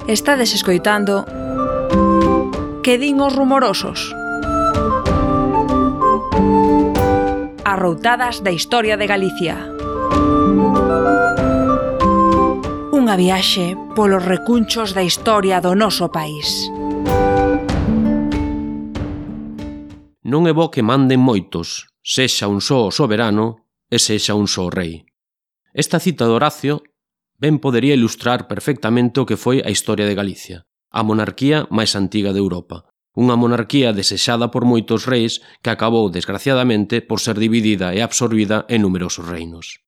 Estades escoitando Que din os rumorosos? Arroutadas da historia de Galicia. Unha viaxe polos recunchos da historia do noso país. Non é bo que manden moitos, sexa un só o soberano e sexa un só o rei. Esta cita de Horacio ben podería ilustrar perfectamente o que foi a historia de Galicia, a monarquía máis antiga de Europa. Unha monarquía desexada por moitos reis que acabou, desgraciadamente, por ser dividida e absorbida en numerosos reinos.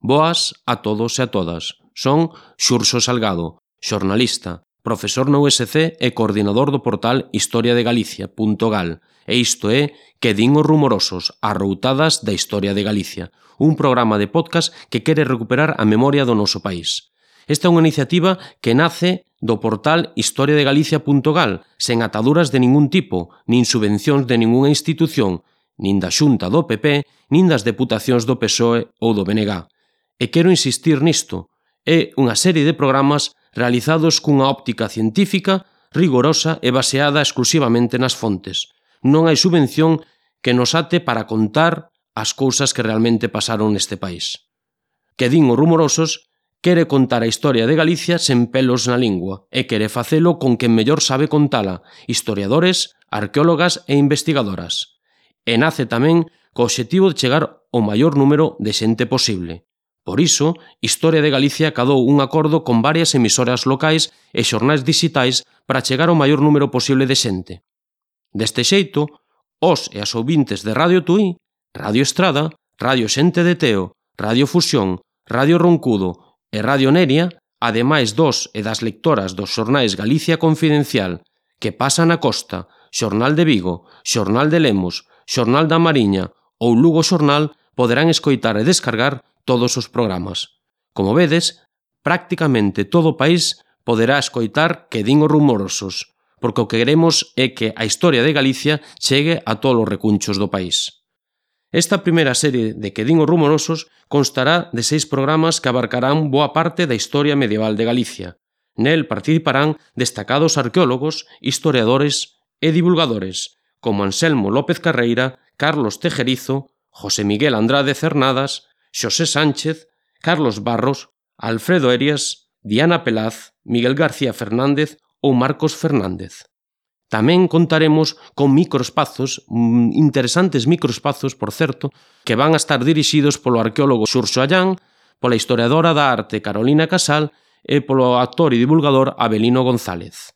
Boas a todos e a todas. Son Xurxo Salgado, xornalista, profesor na USC e coordinador do portal historiadegalicia.gal, e isto é Que din os rumorosos, arroutadas da historia de Galicia, un programa de podcast que quere recuperar a memoria do noso país. Esta é unha iniciativa que nace do portal historiadegalicia.gal, sen ataduras de ningún tipo, nin subvencións de ningunha institución, nin da Xunta do PP, nin das deputacións do PSOE ou do BNG. E quero insistir nisto, é unha serie de programas realizados cunha óptica científica, rigorosa e baseada exclusivamente nas fontes. Non hai subvención que nos ate para contar as cousas que realmente pasaron neste país. Que din os rumorosos quere contar a historia de Galicia sen pelos na lingua e quere facelo con quen mellor sabe contala, historiadores, arqueólogas e investigadoras. E nace tamén co obxectivo de chegar ao maior número de xente posible. Por iso, Historia de Galicia acadou un acordo con varias emisoras locais e xornais dixitais para chegar ao maior número posible de xente. Deste xeito, os e as ouvintes de Radio Tui, Radio Estrada, Radio Xente de Teo, Radio Fusión, Radio Roncudo e Radio Neria, ademais dos e das lectoras dos xornais Galicia Confidencial, Que pasa na Costa, Xornal de Vigo, Xornal de Lemos, Xornal da Mariña ou Lugo Xornal, poderán escoitar e descargar todos os programas. Como vedes, prácticamente todo o país poderá escoitar Que din os rumorosos, porque o que queremos é que a historia de Galicia chegue a todos os recunchos do país. Esta primeira serie de Que din os rumorosos constará de 6 programas que abarcarán boa parte da historia medieval de Galicia. Nel participarán destacados arqueólogos, historiadores e divulgadores, como Anselmo López Carreira, Carlos Tejerizo, José Miguel Andrade Cernadas, Xosé Sánchez, Carlos Barros, Alfredo Erias, Diana Pelaz, Miguel García Fernández ou Marcos Fernández. Tamén contaremos con microespazos, interesantes microespazos, por certo, que van a estar dirixidos polo arqueólogo Xurxo Allán, pola historiadora da arte Carolina Casal e polo actor e divulgador Avelino González.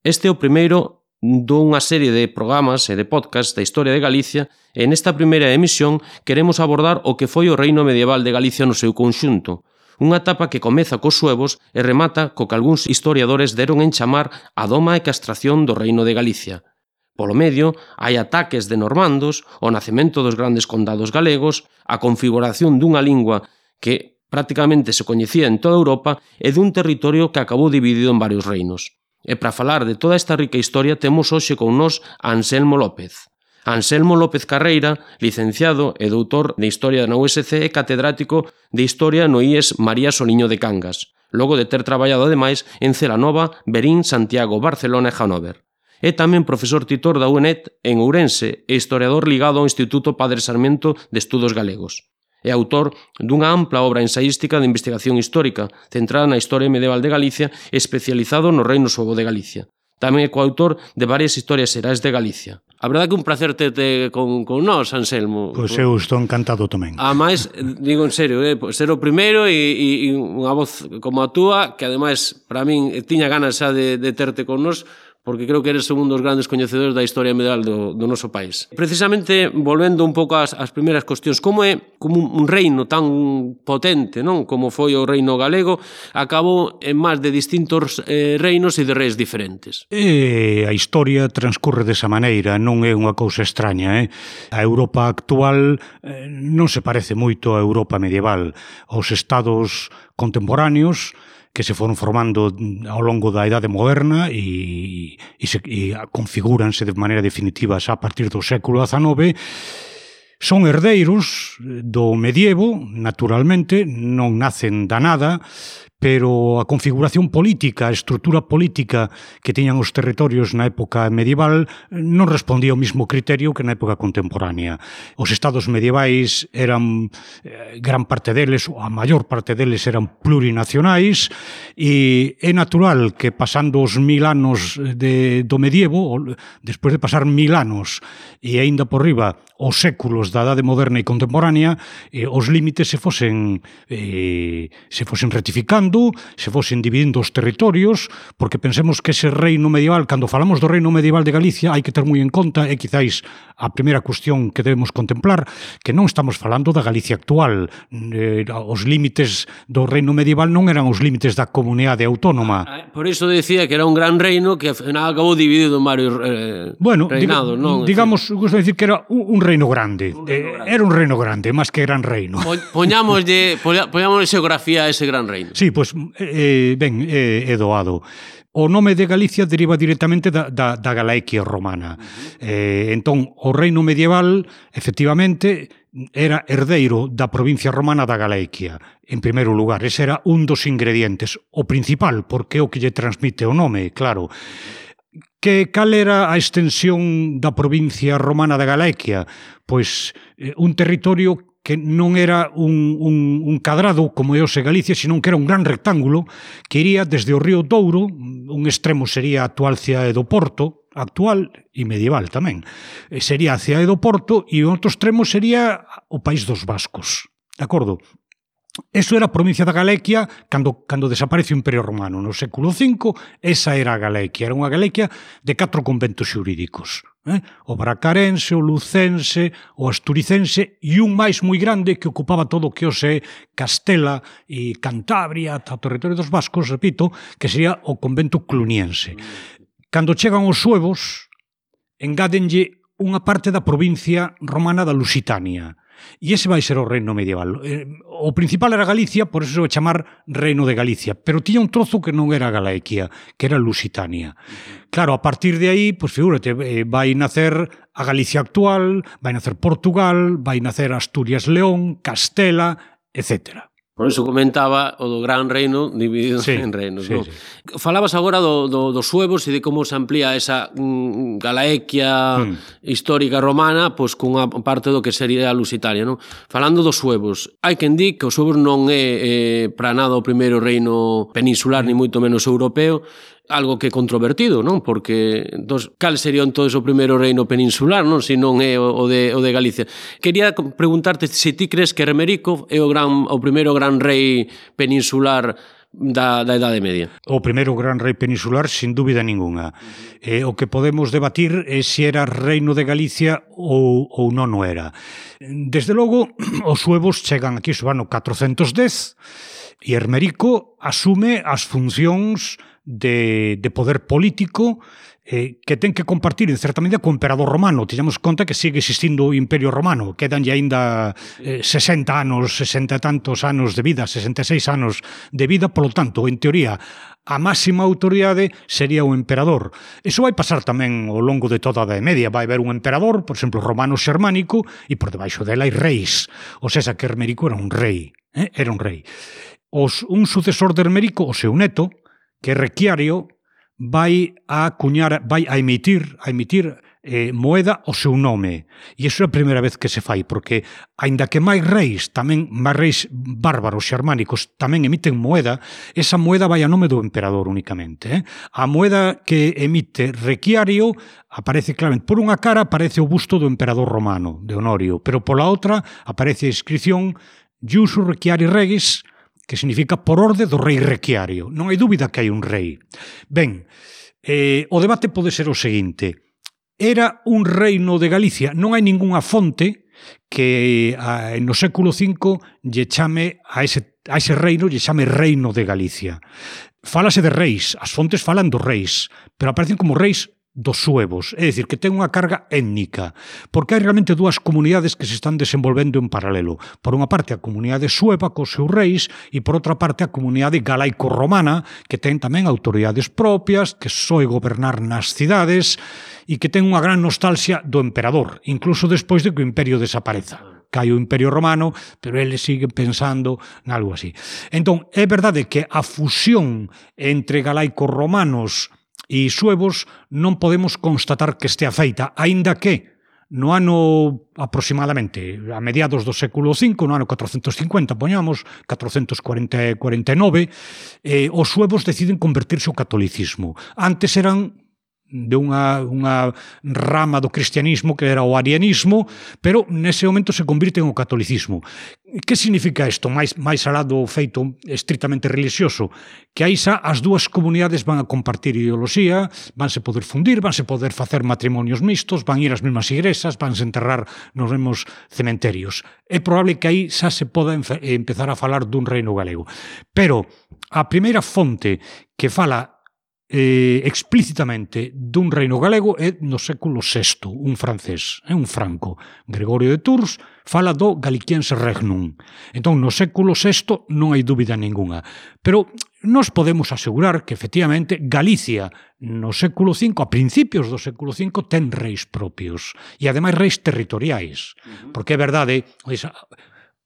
Este é o primeiro dunha serie de programas e de podcasts da historia de Galicia e nesta primeira emisión queremos abordar o que foi o reino medieval de Galicia no seu conxunto, unha etapa que comeza cos suevos e remata co que algúns historiadores deron en chamar a doma e castración do reino de Galicia. Polo medio, hai ataques de normandos, o nacemento dos grandes condados galegos, a configuración dunha lingua que prácticamente se coñecía en toda Europa e dun territorio que acabou dividido en varios reinos. E para falar de toda esta rica historia temos hoxe con nós a Anselmo López. Anselmo López Carreira, licenciado e doutor de Historia na USC e catedrático de Historia no IES María Soliño de Cangas, logo de ter traballado ademais en Celanova, Verín, Santiago, Barcelona e Hannover. É tamén profesor titor da UNED en Ourense e historiador ligado ao Instituto Padre Sarmiento de Estudos Galegos. É autor dunha ampla obra ensaística de investigación histórica centrada na historia medieval de Galicia e especializado no Reino Suevo de Galicia. Tamén é coautor de varias historias xerais de Galicia. A verdade que un placer terte con nós, Anselmo. Pois eu estou encantado tamén. Ademais, digo en serio, ser o primeiro e unha voz como a túa, que ademais, para min, tiña ganas xa de terte con nós, porque creo que eres un dos grandes coñecedores da historia medieval do noso país. Precisamente, volvendo un pouco ás primeiras cuestións, como é como un reino tan potente, non, como foi o reino galego, acabou en máis de distintos reinos e de reis diferentes? A historia transcurre desa maneira, non é unha cousa extraña. A Europa actual non se parece moito á Europa medieval. Os estados contemporáneos que se foron formando ao longo da Idade Moderna e configúranse de maneira definitiva xa a partir do século XIX, son herdeiros do medievo, naturalmente, non nacen da nada, pero a configuración política, a estrutura política que tiñan os territorios na época medieval non respondía ao mesmo criterio que na época contemporánea. Os estados medievais eran, gran parte deles, ou a maior parte deles eran plurinacionais, e é natural que pasando os 1000 anos do medievo, despois de pasar 1000 anos e aínda por riba os séculos da Edade Moderna e contemporánea, os límites se fosen rectificando, se fosen dividindo os territorios, porque pensemos que ese reino medieval, cando falamos do reino medieval de Galicia, hai que ter moi en conta, e quizáis a primeira cuestión que debemos contemplar, que non estamos falando da Galicia actual. Os límites do reino medieval non eran os límites da comunidade autónoma. Por iso decía que era un gran reino que ao final acabou dividido en varios reinados, non? Digamos, gusto decir que era un reino grande. Era un reino grande, máis que gran reino. Poñámoslle xeografía a ese gran reino. Sí, pois, ben, é doado. O nome de Galicia deriva directamente da Galaequia romana. Entón, o reino medieval, efectivamente, era herdeiro da provincia romana da Galaequia. En primeiro lugar, ese era un dos ingredientes. O principal, porque é o que lle transmite o nome, claro. Cal era a extensión da provincia romana da Galaequia? Pois un territorio que non era un cadrado como é o de Galicia, senón que era un gran rectángulo que iría desde o río Douro, un extremo sería a actual cidade do Porto, actual e medieval tamén, sería a cidade do Porto, e o outro extremo sería o país dos vascos, de acordo? Eso era a provincia da Galaequia cando desaparece o Imperio Romano. No século V, esa era a Galaequia. Era unha Galaequia de 4 conventos xurídicos. O bracarense, o lucense, o asturicense e un máis moi grande que ocupaba todo o que hoxe Castela e Cantabria, o territorio dos vascos, repito, que sería o convento cluniense. Cando chegan os suevos, engádenlle unha parte da provincia romana da Lusitania. E ese vai ser o reino medieval. O principal era Galicia, por eso se vai chamar Reino de Galicia, pero tiña un trozo que non era Galaequia, que era Lusitania. Claro, a partir de aí, pues figúrate, vai nacer a Galicia actual, vai nacer Portugal, vai nacer Asturias-León, Castela, etcétera. Por iso comentaba o do gran reino dividido en reinos. Sí, non? Sí. Falabas agora dos suevos e de como se amplía esa Galaequia histórica romana pois cunha parte do que sería a Lusitania. Non? Falando dos suevos, hai quen di que os suevos non é para nada o primeiro reino peninsular, ni moito menos europeo, algo que é controvertido, non? Porque cal sería entón o primeiro reino peninsular, non? Se non é o de Galicia. Quería preguntarte se ti crees que Hermerico é o primeiro gran rei peninsular da Edade Media. O primeiro gran rei peninsular, sin dúbida ninguna. O que podemos debatir é se era reino de Galicia ou non o era. Desde logo, os suevos chegan aquí no ano 410 e Hermerico asume as funcións de poder político que ten que compartir en certa medida co emperador romano. Teñamos conta que sigue existindo o Imperio Romano, quedanlle aínda 60 anos, 60 e tantos anos de vida, 66 anos de vida, polo tanto, en teoría, a máxima autoridade sería o emperador. Iso vai pasar tamén ao longo de toda a Edade Media. Vai haber un emperador, por exemplo, romano-xermánico, e por debaixo dela hai reis. O sea, que Hermerico era un rei. Era un rei. Un sucesor de Hermerico, o seu neto, que Requiario, vai a emitir moeda o seu nome. E iso é a primeira vez que se fai, porque, aínda que máis reis bárbaros xermánicos tamén emiten moeda, esa moeda vai a nome do emperador únicamente. A moeda que emite Requiario aparece claramente, por unha cara aparece o busto do emperador romano, de Honorio, pero pola outra aparece a inscripción Iusu Requiari Regis, que significa por orde do rei Requiario. Non hai dúbida que hai un rei. Ben, o debate pode ser o seguinte. Era un reino de Galicia? Non hai ningunha fonte que no século V lle chame a ese reino, lle chame Reino de Galicia. Fálase de reis, as fontes falan dos reis, pero aparecen como reis dos suevos, é dicir, que ten unha carga étnica, porque hai realmente dúas comunidades que se están desenvolvendo en paralelo. Por unha parte, a comunidade sueva cos seus reis, e por outra parte, a comunidade galaico-romana, que ten tamén autoridades propias, que soe gobernar nas cidades, e que ten unha gran nostalgia do emperador, incluso despois de que o imperio desapareza. cae o Imperio Romano, pero eles siguen pensando nalgo así. Entón, é verdade que a fusión entre galaicos romanos e suevos non podemos constatar que estea feita, aínda que no ano aproximadamente a mediados do século V, no ano 450, poñamos, 449, os suevos deciden convertirse ao catolicismo. Antes eran de unha rama do cristianismo que era o arianismo, pero nese momento se convirten ao catolicismo. Que significa isto? Mais alá do feito estritamente religioso, que aí xa as dúas comunidades van a compartir ideoloxía, vanse poder fundir, vanse poder facer matrimonios mixtos, van ir ás mesmas igrexas, vanse enterrar nos mesmos cementerios. É probable que aí xa se poda empezar a falar dun reino galego. Pero a primeira fonte que fala explícitamente dun reino galego é no século VI, un francés, un franco, Gregorio de Tours, fala do Galiciense Regnum. Entón, no século VI non hai dúbida ninguna. Pero nos podemos asegurar que, efectivamente, Galicia no século V, a principios do século V, ten reis propios. E, ademais, reis territoriais. Porque é verdade,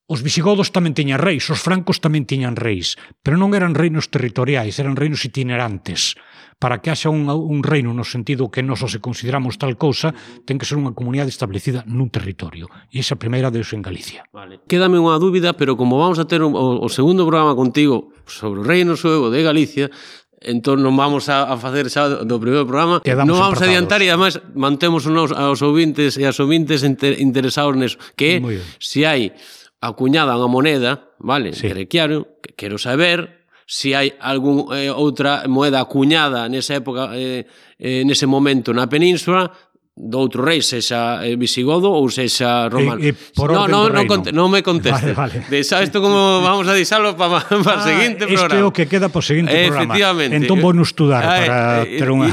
os visigodos tamén tiñan reis, os francos tamén tiñan reis, pero non eran reinos territoriais, eran reinos itinerantes. Para que haxa un reino no sentido que nós se consideramos tal cousa, ten que ser unha comunidade establecida nun territorio. E esa primeira deus en Galicia. Vale. Quédame unha dúbida, pero como vamos a ter o segundo programa contigo sobre o reino suevo de Galicia, entón non vamos a facer xa do primeiro programa, non vamos a adiantar e además mantemos aos ouvintes e as ouvintes interesados neso, que se hai acuñada unha moneda, vale, sí. Quero saber se hai algún outra moeda acuñada nesa época, nese momento na península, do outro rei, sexa visigodo ou sexa romano. Non me conteste. Vale. Deixa isto como vamos a deixalo para o seguinte programa. Este é o que queda para o seguinte programa. Efectivamente. Entón vou nos estudar para ter unha...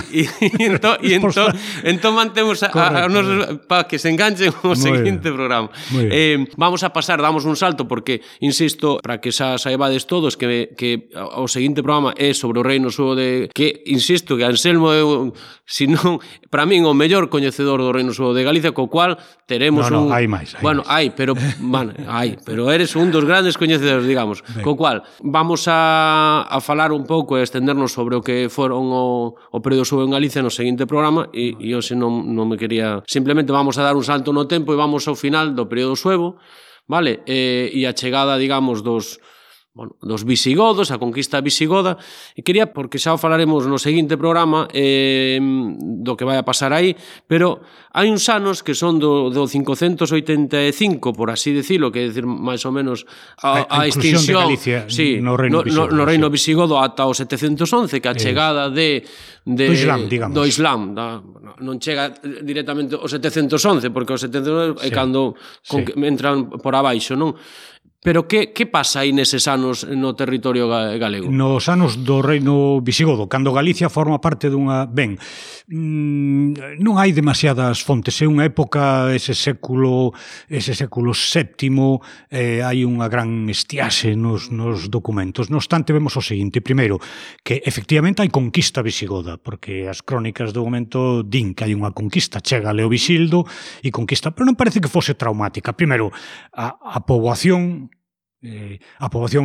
Entón mantemos para que se enganchen o seguinte programa. Vamos a pasar, damos un salto, porque, insisto, para que xa saibades todos que o seguinte programa é sobre o reino suevo de... Que, insisto, que Anselmo é, senón, para min, o mellor coñecedor do reino suevo de Galicia, co cual teremos hai máis. Pero eres un dos grandes coñecedores, digamos. Co cual, vamos a falar un pouco e estendernos sobre o que foron o período suevo en Galicia no seguinte programa, e hoxe non me quería... Simplemente vamos a dar un salto no tempo e vamos ao final do período suevo, vale? E a chegada, digamos, dos visigodos, a conquista visigoda, e quería, porque xa o falaremos no seguinte programa do que vai a pasar aí, pero hai uns anos que son do 585, por así decirlo, que é decir, máis ou menos a extinción de Galicia, sí, no reino visigodo ata o 711, que a chegada do Islam, digamos. Do Islam, non chega directamente o 711, porque o 711 é cando entran por abaixo, non? Pero que pasa aí neses anos no territorio galego? Nos anos do reino visigodo, cando Galicia forma parte dunha... Ben, non hai demasiadas fontes, é unha época, ese século VII, hai unha gran estiaxe nos documentos. No obstante, vemos o seguinte: primeiro, que efectivamente hai conquista visigoda, porque as crónicas do momento din que hai unha conquista, chega Leovisildo e conquista, pero non parece que fose traumática. Primeiro, a poboación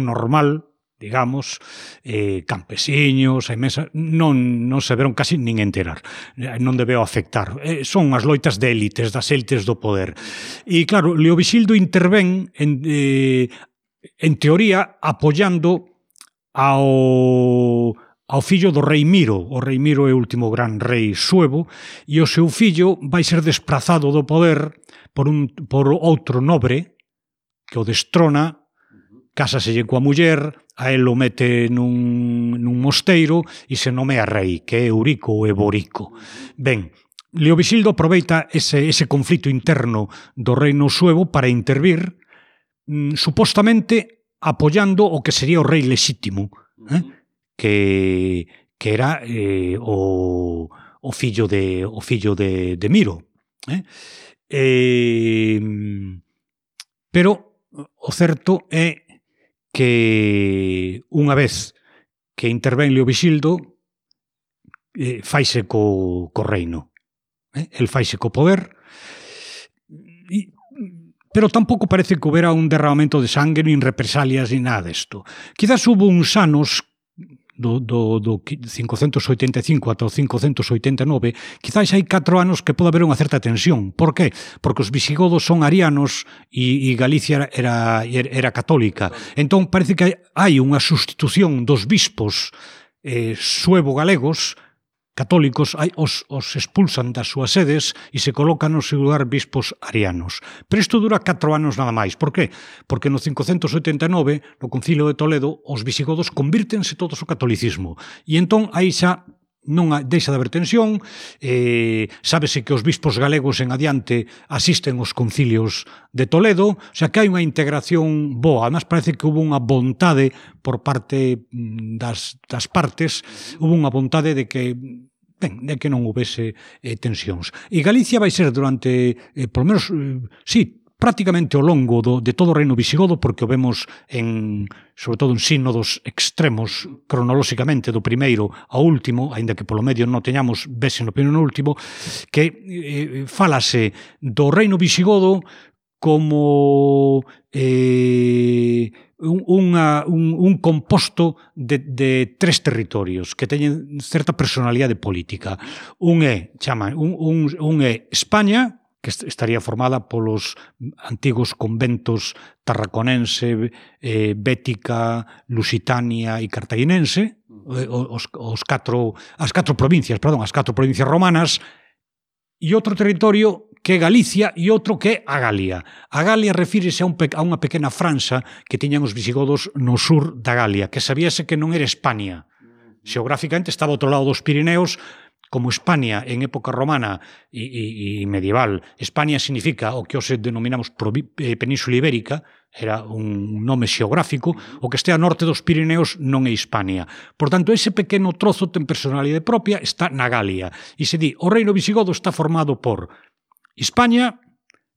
normal, digamos, campesiños, non se veron casi nin enterar, non debeu afectar. Son as loitas de élites, das élites do poder. E claro, Leovisildo intervén en teoría apoiando ao fillo do rei Miro. O rei Miro é o último gran rei suevo, e o seu fillo vai ser desprazado do poder por outro nobre que o destrona, cásaselle coa muller, a él o mete nun mosteiro e se nomea rei, que é Eurico ou Eborico. Ben, Leovisildo aproveita ese conflito interno do reino suevo para intervir, supostamente apoiando o que sería o rei lexítimo, que era o fillo de Miro. Pero o certo é que unha vez que intervén Leovisildo, faise co reino. El faise co poder. pero tampouco parece que houbera un derramamento de sangue, nin represalias, nin nada desto. Quizás hubo uns anos do 585 ata o 589, quizás hai 4 anos que pode haber unha certa tensión. Por qué? Porque os visigodos son arianos e Galicia era católica. Entón parece que hai unha sustitución dos bispos suevo-galegos católicos, os expulsan das súas sedes e se colocan no seu lugar bispos arianos. Pero isto dura 4 anos nada máis. Por qué? Porque no 589, no Concilio de Toledo, os visigodos convírtense todos ao catolicismo. E entón aí xa non deixa de haber tensión, sábese que os bispos galegos en adiante asisten aos concilios de Toledo, o sea que hai unha integración boa. Además parece que hubo unha vontade por parte das partes, hubo unha vontade de que non houvese tensións. E Galicia vai ser durante, por lo menos, prácticamente ao longo de todo o reino visigodo, porque o vemos sobre todo en sínodos extremos cronolóxicamente do primeiro ao último, aínda que polo medio non teñamos vese no primeiro no último, que fálase do reino visigodo como un composto de 3 territorios que teñen certa personalidade política. Un é España, que estaría formada polos antigos conventos tarraconense, bética, lusitania e cartaginense, as catro provincias romanas, e outro territorio que é Galicia e outro que é a Galia. A Galia refírese a unha pequena franxa que tiñan os visigodos no sur da Galia, que sabíase que non era España. Xeográficamente estaba ao outro lado dos Pirineos, como España en época romana e medieval. España significa o que hoxe denominamos Península Ibérica, era un nome xeográfico, o que este a norte dos Pirineos non é Hispania. Por tanto, ese pequeno trozo ten personalidade propia, está na Galia. E se di, o reino visigodo está formado por España,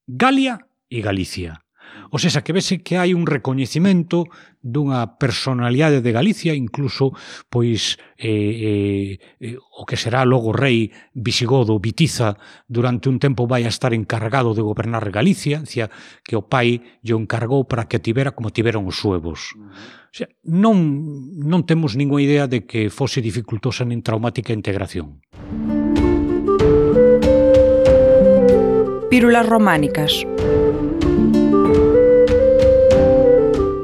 Galia e Galicia. O sea, que vese que hai un recoñecimento dunha personalidade de Galicia, incluso pois o que será logo rei visigodo Bitiza durante un tempo vai a estar encargado de gobernar Galicia, decía que o pai lle encargou para que tivera como tiveron os suevos. O sea, non temos ninguna idea de que fose dificultosa nin traumática a integración. Pílulas románicas.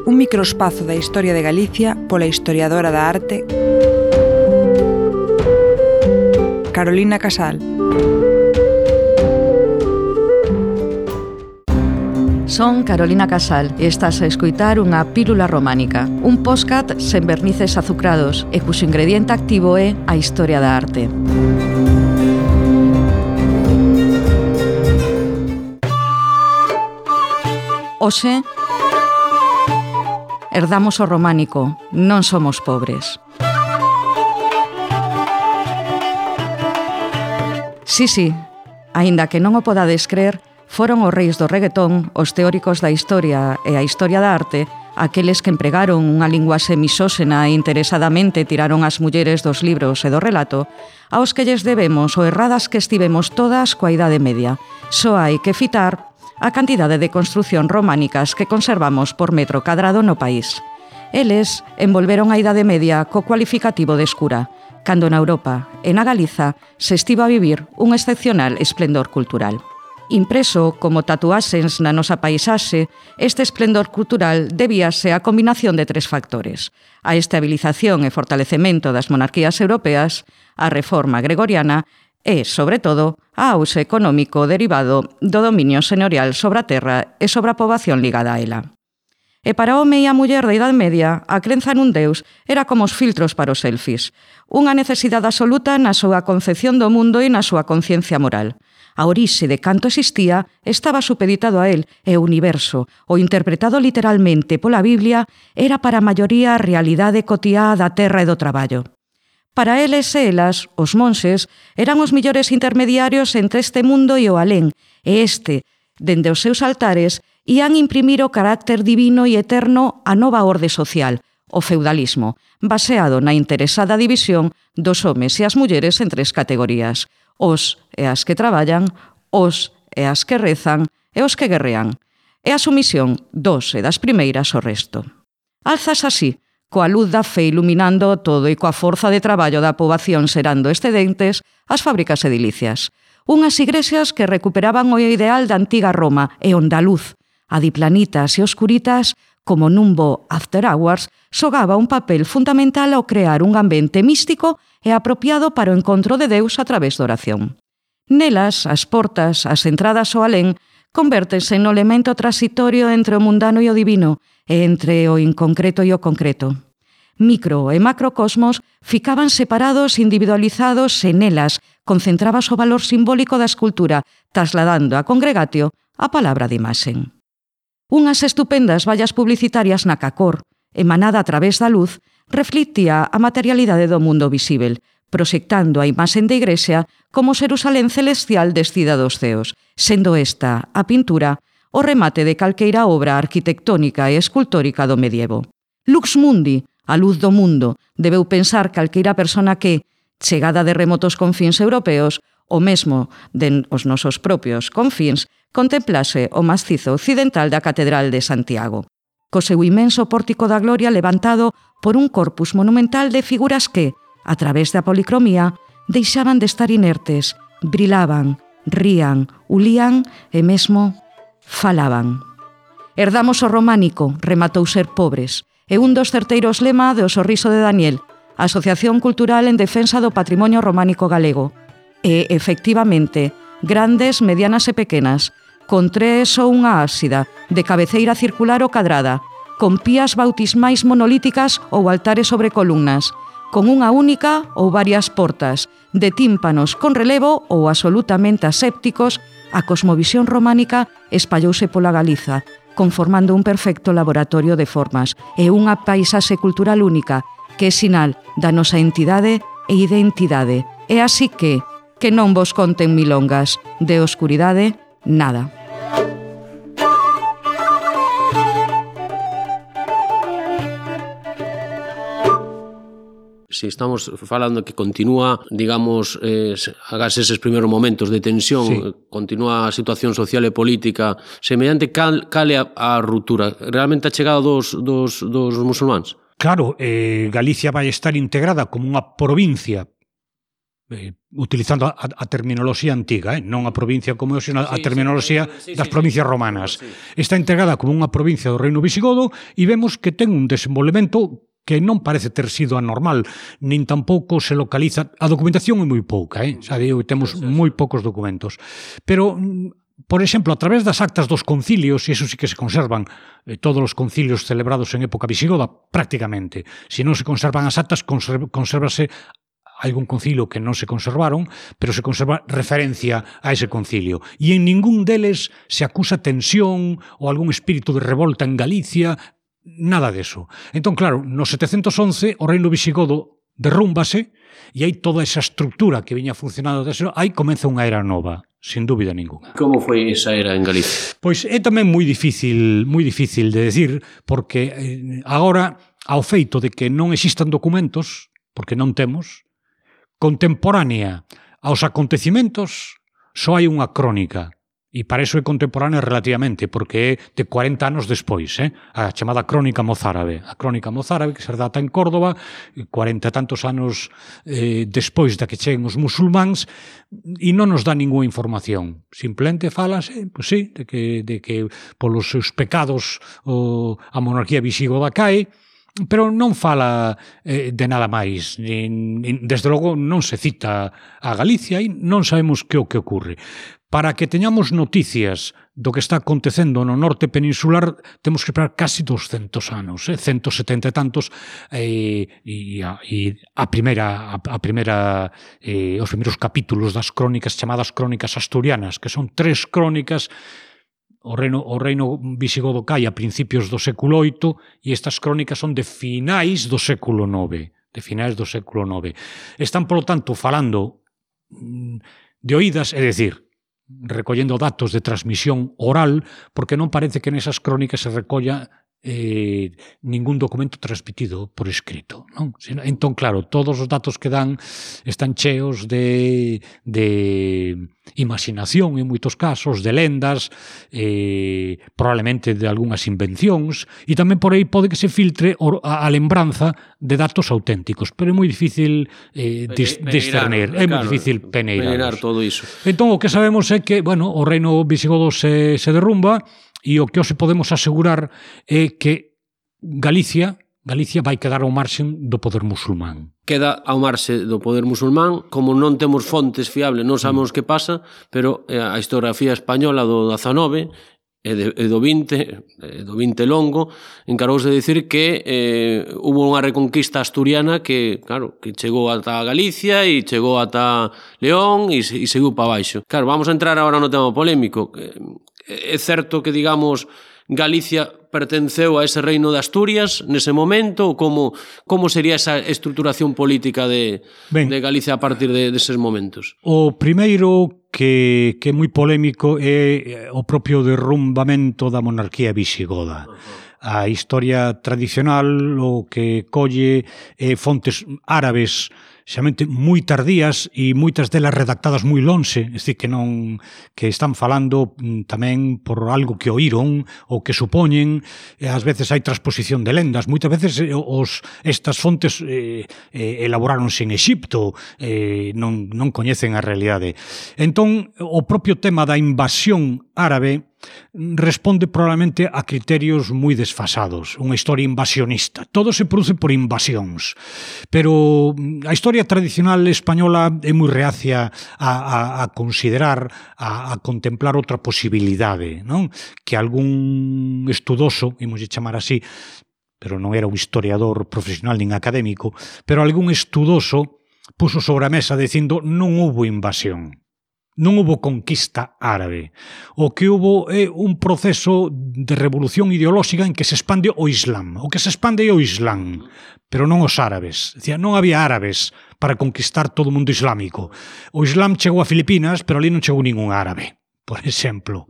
Un microespazo da historia de Galicia pola historiadora da arte Carolina Casal. Son Carolina Casal e estás a escoitar unha pílula románica, un podcast sen vernices azucrados e cuxo ingrediente activo é a historia da arte. Hoxe, herdamos o románico, non somos pobres. Sí, aínda que non o podades crer, foron os reis do reggaetón, os teóricos da historia e a historia da arte, aqueles que empregaron unha linguaxe misóxena e interesadamente tiraron as mulleres dos libros e do relato, aos que lles debemos o erradas que estivemos todas coa Idade Media. Só hai que fitar a cantidade de construción románicas que conservamos por metro cadrado no país. Eles envolveron a Idade Media co cualificativo de escura, cando na Europa e na Galiza se estivo a vivir un excepcional esplendor cultural. Impreso como tatuaxes na nosa paisaxe, este esplendor cultural debíase á combinación de 3 factores: a estabilización e fortalecemento das monarquías europeas, a reforma gregoriana e, sobre todo, a auxe económico derivado do dominio señorial sobre a terra e sobre a poboación ligada a ela. E para o home e a muller da Idade Media, a crenza nun Deus era como os filtros para os selfies, unha necesidade absoluta na súa concepción do mundo e na súa conciencia moral. A orixe de canto existía estaba supeditado a él e o universo, o interpretado literalmente pola Biblia, era para a maioría a realidade cotiá da terra e do traballo. Para eles e elas, os monxes, eran os millores intermediarios entre este mundo e o alén, e este, dende os seus altares, ían imprimir o carácter divino e eterno á nova orde social, o feudalismo, baseado na interesada división dos homes e as mulleres en 3 categorías: os e as que traballan, os e as que rezan e os que guerrean. e a sumisión dos e das primeiras ao resto. Alzas así, coa luz da fe iluminando todo e coa forza de traballo da poboación serando excedentes, as fábricas edilicias. Unhas igrexas que recuperaban o ideal da antiga Roma e onde a luz, a diplanitas e oscuritas, como nun bo after hours, xogaba un papel fundamental ao crear un ambiente místico e apropiado para o encontro de Deus a través da oración. Nelas, as portas, as entradas ao alén, convértense no elemento transitorio entre o mundano e o divino, e entre o inconcreto e o concreto. Micro e macrocosmos ficaban separados, individualizados e nelas concentrabas o valor simbólico da escultura, trasladando a congregatio a palabra de imaxen. Unhas estupendas vallas publicitarias na cacor, emanada a través da luz, reflictía a materialidade do mundo visível, proxectando a imaxen de igrexa como Xerusalén celestial descida dos ceos, sendo esta, a pintura, o remate de calqueira obra arquitectónica e escultórica do medievo. Lux mundi, a luz do mundo, debeu pensar calqueira persona que, chegada de remotos confíns europeos, o mesmo den os nosos propios confíns, contemplase o macizo occidental da Catedral de Santiago, co seu imenso pórtico da gloria levantado por un corpus monumental de figuras que, a través da policromía, deixaban de estar inertes, brilaban, rían, ulían e mesmo falaban. Herdamos o románico, rematou ser pobres, e un dos certeiros lema do Sorriso de Daniel, Asociación Cultural en Defensa do Patrimonio Románico Galego. E, efectivamente, grandes, medianas e pequenas, con tres ou unha ábsida, de cabeceira circular ou cadrada, con pías bautismais monolíticas ou altares sobre columnas, con unha única ou varias portas, de tímpanos con relevo ou absolutamente asépticos, a cosmovisión románica espallouse pola Galiza, conformando un perfecto laboratorio de formas e unha paisaxe cultural única, que é sinal da nosa entidade e identidade. E así que non vos conten milongas, de oscuridade, nada. Si estamos falando que continúa, digamos, agás eses primeiros momentos de tensión, sí, continúa a situación social e política, semellante cal é a ruptura? Realmente a chegada dos musulmáns? Claro, Galicia vai estar integrada como unha provincia, utilizando a terminoloxía antiga, non a provincia como hoxe, a terminoloxía das provincias romanas. Está integrada como unha provincia do Reino Visigodo e vemos que ten un desenvolvemento que non parece ter sido anormal, nin tampouco se localiza. A documentación é moi pouca, xa digo, temos moi poucos documentos. Pero, por exemplo, a través das actas dos concilios, e iso sí que se conservan todos os concilios celebrados en época visigoda, prácticamente. Se non se conservan as actas, consérvase algún concilio que non se conservaron, pero se conserva referencia a ese concilio. E en ningún deles se acusa tensión ou algún espírito de revolta en Galicia, nada deso. Entón, claro, no 711 o reino visigodo derrúmbase e hai toda esa estructura que viña funcionando desde aí comeza unha era nova, sin dúbida ninguna. Como foi esa era en Galicia? Pois é tamén moi difícil de decir, porque agora, ao feito de que non existan documentos, porque non temos, contemporánea aos acontecimentos, só hai unha crónica. E para iso é contemporánea relativamente, porque é de 40 anos despois, a chamada Crónica Mozárabe. A Crónica Mozárabe, que se data en Córdoba, 40 e tantos anos despois da que cheguen os musulmáns, e non nos dá ninguna información. Simplemente falase, pois sí, de que polos seus pecados a monarquía visigoda cae, pero non fala de nada máis. Desde logo non se cita a Galicia e non sabemos que o que ocurre. Para que teñamos noticias do que está acontecendo no norte peninsular, temos que esperar casi 200 anos, 170 e tantos, e os primeiros capítulos das crónicas chamadas crónicas asturianas, que son 3 crónicas. O reino visigodo cae a principios do século VIII e estas crónicas son de finais do século IX. Están, polo tanto, falando de oídas, é dicir, recollendo datos de transmisión oral, porque non parece que nesas crónicas se recolla ningún documento transmitido por escrito, non? Entón, claro, todos os datos que dan están cheos de imaginación en moitos casos, de lendas, probablemente de algunhas invencións, e tamén por aí pode que se filtre a lembranza de datos auténticos, pero é moi difícil discernir, é moi difícil peneirar todo iso. Entón, o que sabemos é que, bueno, o reino visigodo se derrumba, e o que hoxe podemos asegurar é que Galicia vai quedar ao marxen do poder musulmán. Queda ao marxe do poder musulmán, como non temos fontes fiables, non sabemos que pasa, pero a historiografía española do 19 e do 20 longo, encargouse de dicir que hubo unha reconquista asturiana que, claro, que chegou ata Galicia e chegou ata León e seguiu para baixo. Claro, vamos a entrar agora no tema polémico. É certo que, digamos, Galicia pertenceu a ese reino de Asturias nese momento, ou como sería esa estruturación política de Galicia a partir deses momentos? O primeiro que é moi polémico é o propio derrumbamento da monarquía visigoda. A historia tradicional o que colle fontes árabes xamente moi tardías e moitas delas redactadas moi lonxe, é dicir, que están falando tamén por algo que oíron ou que supoñen, ás veces hai transposición de lendas, moitas veces estas fontes elaboráronse en Exipto, non coñecen a realidade. Entón, o propio tema da invasión árabe responde probablemente a criterios moi desfasados, unha historia invasionista. Todo se produce por invasións, pero a historia tradicional española é moi reacia a considerar, a contemplar outra posibilidade, non? Que algún estudoso, imos chamar así, pero non era un historiador profesional nin académico, pero algún estudoso puso sobre a mesa dicindo non houbo invasión. Non houbo conquista árabe. O que houbo é un proceso de revolución ideolóxica en que se expande o Islam. O que se expande é o Islam, pero non os árabes. Decía, non había árabes para conquistar todo o mundo islámico. O Islam chegou a Filipinas, pero ali non chegou ningún árabe, por exemplo.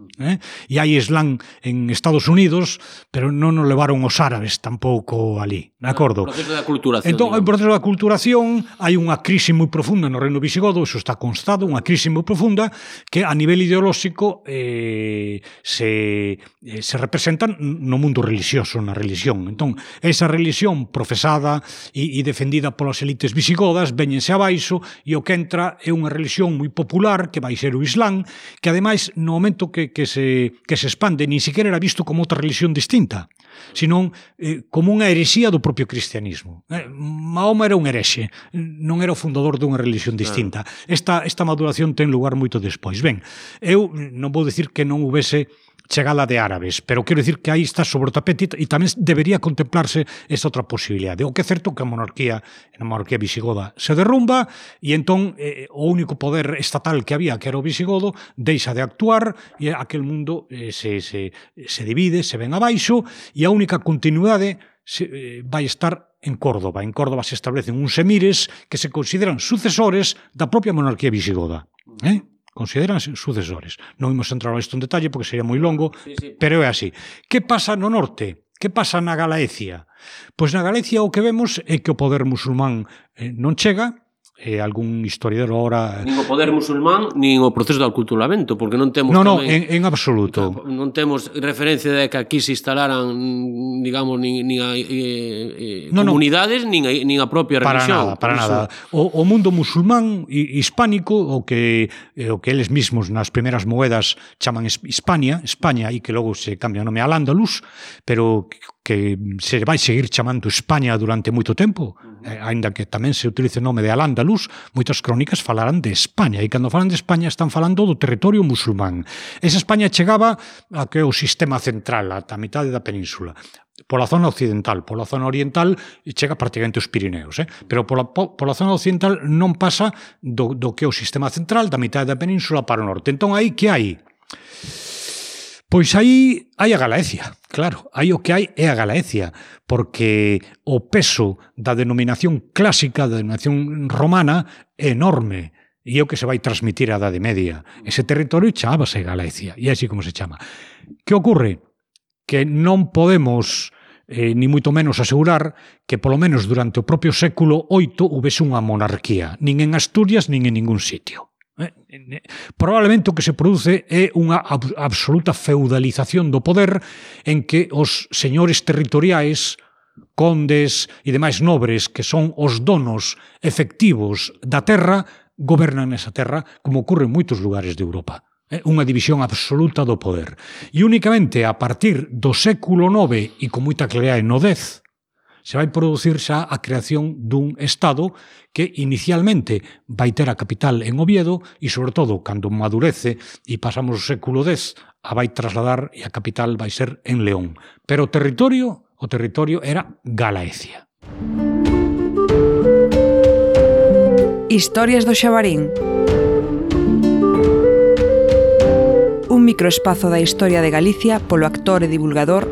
E hai Islam en Estados Unidos, pero non nos levaron os árabes tampouco ali, de acordo? O proceso da culturación. Entón, o proceso da culturación, hai unha crise moi profunda no reino visigodo, iso está constado, unha crise moi profunda que a nivel ideolóxico se representa no mundo religioso, na religión. Entón, esa religión profesada e defendida polas elites visigodas véñense abaixo e o que entra é unha religión moi popular que vai ser o Islam, que ademais no momento que se expande, nin sequera era visto como outra religión distinta, senón como unha herexía do propio cristianismo. Mahoma era un herexe, non era o fundador dunha religión distinta. Esta maduración ten lugar moito despois. Ben, eu non vou dicir que non houvese chegada de árabes, pero quero dicir que aí está sobre o tapete e tamén debería contemplarse esa outra posibilidade. O que é certo que a monarquía visigoda se derrumba e entón o único poder estatal que había, que era o visigodo, deixa de actuar e aquel mundo se divide, se ven abaixo e a única continuidade vai estar en Córdoba. En Córdoba se establecen uns emires que se consideran sucesores da propia monarquía visigoda. Consideranse sucesores. Non imos entrar isto en detalle porque sería moi longo, pero é así. Que pasa no norte? Que pasa na Galaecia? Pois na Galicia o que vemos é que o poder musulmán non chega, algún historiador ahora... Nin o poder musulmán, nin o proceso de aculturamento, porque non temos... Non, en absoluto. Non temos referencia de que aquí se instalaran, digamos, nin a comunidades, nin a propia religión. Para nada. O mundo musulmán hispánico, o que eles mismos nas primeras moedas chaman España, e que logo se cambia o nome al Andalus, pero que se vai seguir chamando España durante moito tempo, aínda que tamén se utilice o nome de Al-Ándalus, moitas crónicas falarán de España, e cando falan de España están falando do territorio musulmán. Esa España chegaba a que o sistema central, ata a mitade da península, pola zona occidental, pola zona oriental chega prácticamente os Pirineos, pero pola zona occidental non pasa do que é o sistema central, da mitade da península para o norte. Entón, aí que hai? Pois aí hai a Galaecia, claro, aí o que hai é a Galaecia, porque o peso da denominación clásica, da denominación romana, é enorme, e é o que se vai transmitir á Idade Media. Ese territorio chamábase Galaecia, e é así como se chama. Que ocorre? Que non podemos ni moito menos asegurar que polo menos durante o propio século VIII houvese unha monarquía, nin en Asturias nin en ningún sitio. Probablemente o que se produce é unha absoluta feudalización do poder en que os señores territoriais, condes e demais nobres que son os donos efectivos da terra gobernan esa terra, como ocorre en moitos lugares de Europa. Unha división absoluta do poder. E únicamente a partir do século IX e con moita claridade no X se vai producir xa a creación dun Estado que inicialmente vai ter a capital en Oviedo e, sobre todo, cando madurece e pasamos o século X, a vai trasladar e a capital vai ser en León. Pero o territorio era Galaecia. Historias do Xabarín. Un microespazo da historia de Galicia polo actor e divulgador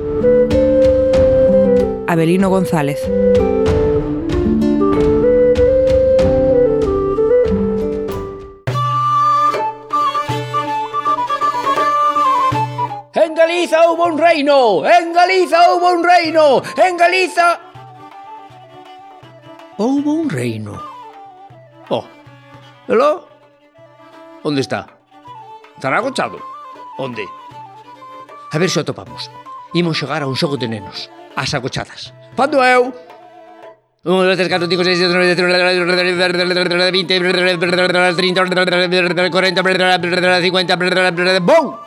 Avelino González. En Galiza houbo un reino! En Galiza houbo un reino! En Galiza houbo un reino. Oh, hello? Onde está? Estará agochado? Onde? A ver se o topamos. Imos xogar a un xogo de nenos. As agochadas. Pando eu? 1, 2, 3, 4, 5, 6, 7, 8, 9, 10, 20, 30, 40, 50... ¡Bum!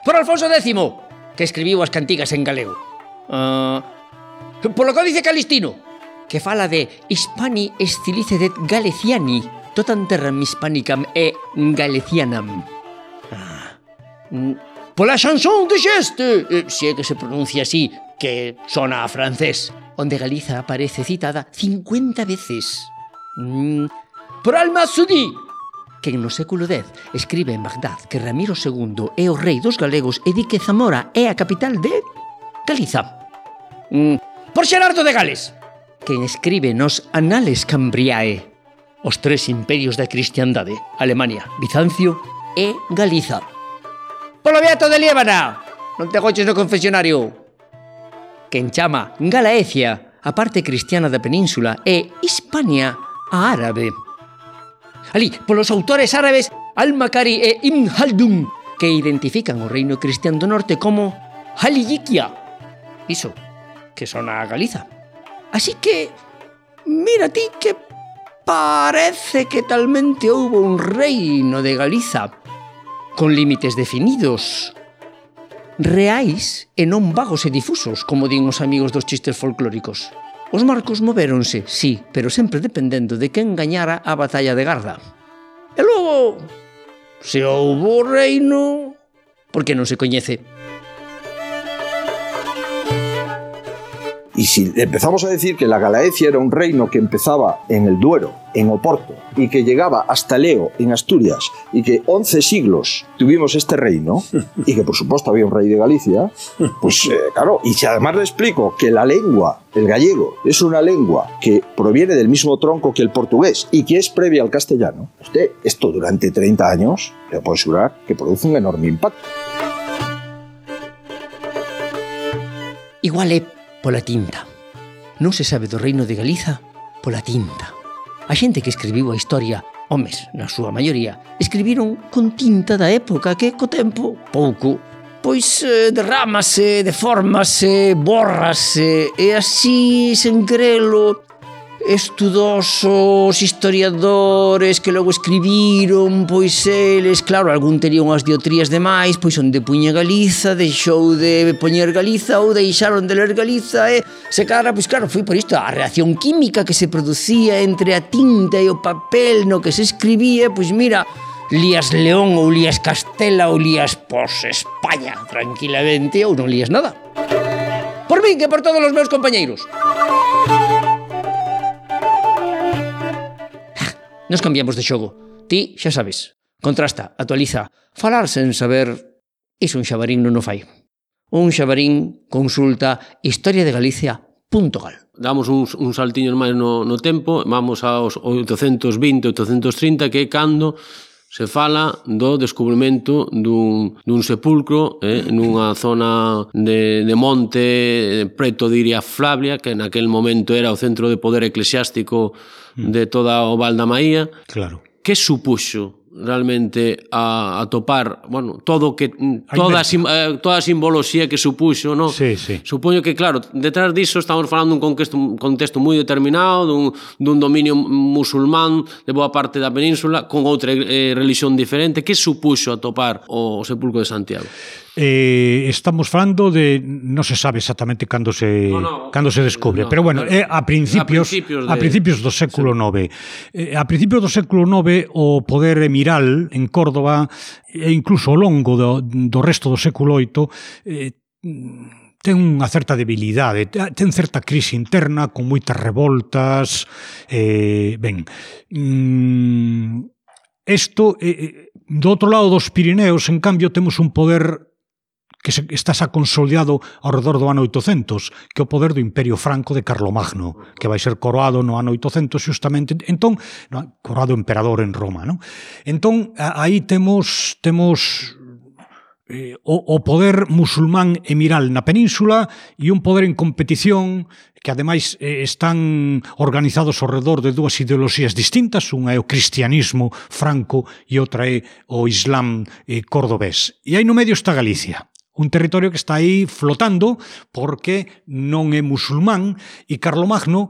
Por Alfonso X, que escribiu as cantigas en galego. Polo Códice Calistino, que fala de Hispani stilicedet Galeciani, totam terram hispanicam e Galecianam. Pola chanson de Geste, se é que se pronuncia así, que sona a francés, onde Galiza aparece citada 50 veces. Por Al-Masudi, que no século X escribe en Bagdad que Ramiro II é o rei dos galegos e di que Zamora é a capital de Galiza. Por Xerardo de Gales, que escribe nos Anales Cambriae os tres imperios da cristiandade, Alemania, Bizancio e Galiza. Polo Beato de Liébana, non te agoches no confesionario, que enchama Galaecia a parte cristiana da península e Hispania a árabe. Alí, polos autores árabes Al-Makari e Ibn Haldun, que identifican o reino cristián do norte como Haliyikia. Iso, que sona a Galiza. Así que, mira ti que parece que talmente houbo un reino de Galiza con límites definidos, reais e non vagos e difusos, como din os amigos dos chistes folclóricos. Os marcos movéronse, sí, pero sempre dependendo de quen gañara a batalla de Garda. E logo, se houbo reino, por que non se coñece? Y si empezamos a decir que la Galaecia era un reino que empezaba en el Duero, en Oporto, y que llegaba hasta Leo, en Asturias, y que 11 siglos tuvimos este reino, y que por supuesto había un rey de Galicia, pues claro, y si además le explico que la lengua, el gallego, es una lengua que proviene del mismo tronco que el portugués y que es previa al castellano, usted esto durante 30 años, le puedo asegurar que produce un enorme impacto. Igual é pola tinta. Non se sabe do reino de Galiza pola tinta. A xente que escribiu a historia, homes, na súa maioría, escribiron con tinta da época que, co tempo, pouco, pois derrámase, deformase, bórrase, e así, sen querelo, estudosos historiadores que logo escribiron, pois eles, claro, algún tería unhas diotrías demais, pois onde puña Galiza, deixou de poñer Galiza ou deixaron de ler Galiza e se cara, pois claro, foi por isto a reacción química que se producía entre a tinta e o papel no que se escribía, pois mira, lías León ou lías Castela ou lías pos España tranquilamente ou non lías nada. Por min que por todos os meus compañeiros. Nos cambiamos de xogo. Ti, xa sabes, contrasta, actualiza. Falar sen saber, iso un xabarín non o fai. Un xabarín consulta historiadegalicia.gal. Damos uns saltiños máis no tempo, vamos aos 820, 830, que é cando Se fala do descubrimento dun sepulcro nunha zona de monte preto de Iria Flavia, que naquel momento era o centro de poder eclesiástico de toda o Val da Maía. Claro. Que supuxo realmente a topar, bueno, todo que toda a simboloxía que supuxo, no? Sí, sí. Supoño que, claro, detrás disso estamos falando dun contexto moi determinado, dun dominio musulmán de boa parte da península, con outra religión diferente. Que supuxo a topar o sepulcro de Santiago? Estamos falando de, non se sabe exactamente cando se descubre, pero bueno, a principios do século IX. A principios do século IX o poder emiral en Córdoba e incluso ao longo do resto do século VIII ten unha certa debilidade, ten certa crise interna con moitas revoltas. Do outro lado dos Pirineos, en cambio, temos un poder que está xa consolidado ao redor do ano 800, que é o poder do Imperio Franco de Carlomagno, que vai ser coroado no ano 800 justamente, entón, coroado emperador en Roma, non? Entón, aí temos o poder musulmán emiral na península e un poder en competición que ademais están organizados ao redor de dúas ideoloxías distintas, unha é o cristianismo franco e outra é o islam cordobés. E aí no medio está Galicia, un territorio que está aí flotando porque non é musulmán, e Carlomagno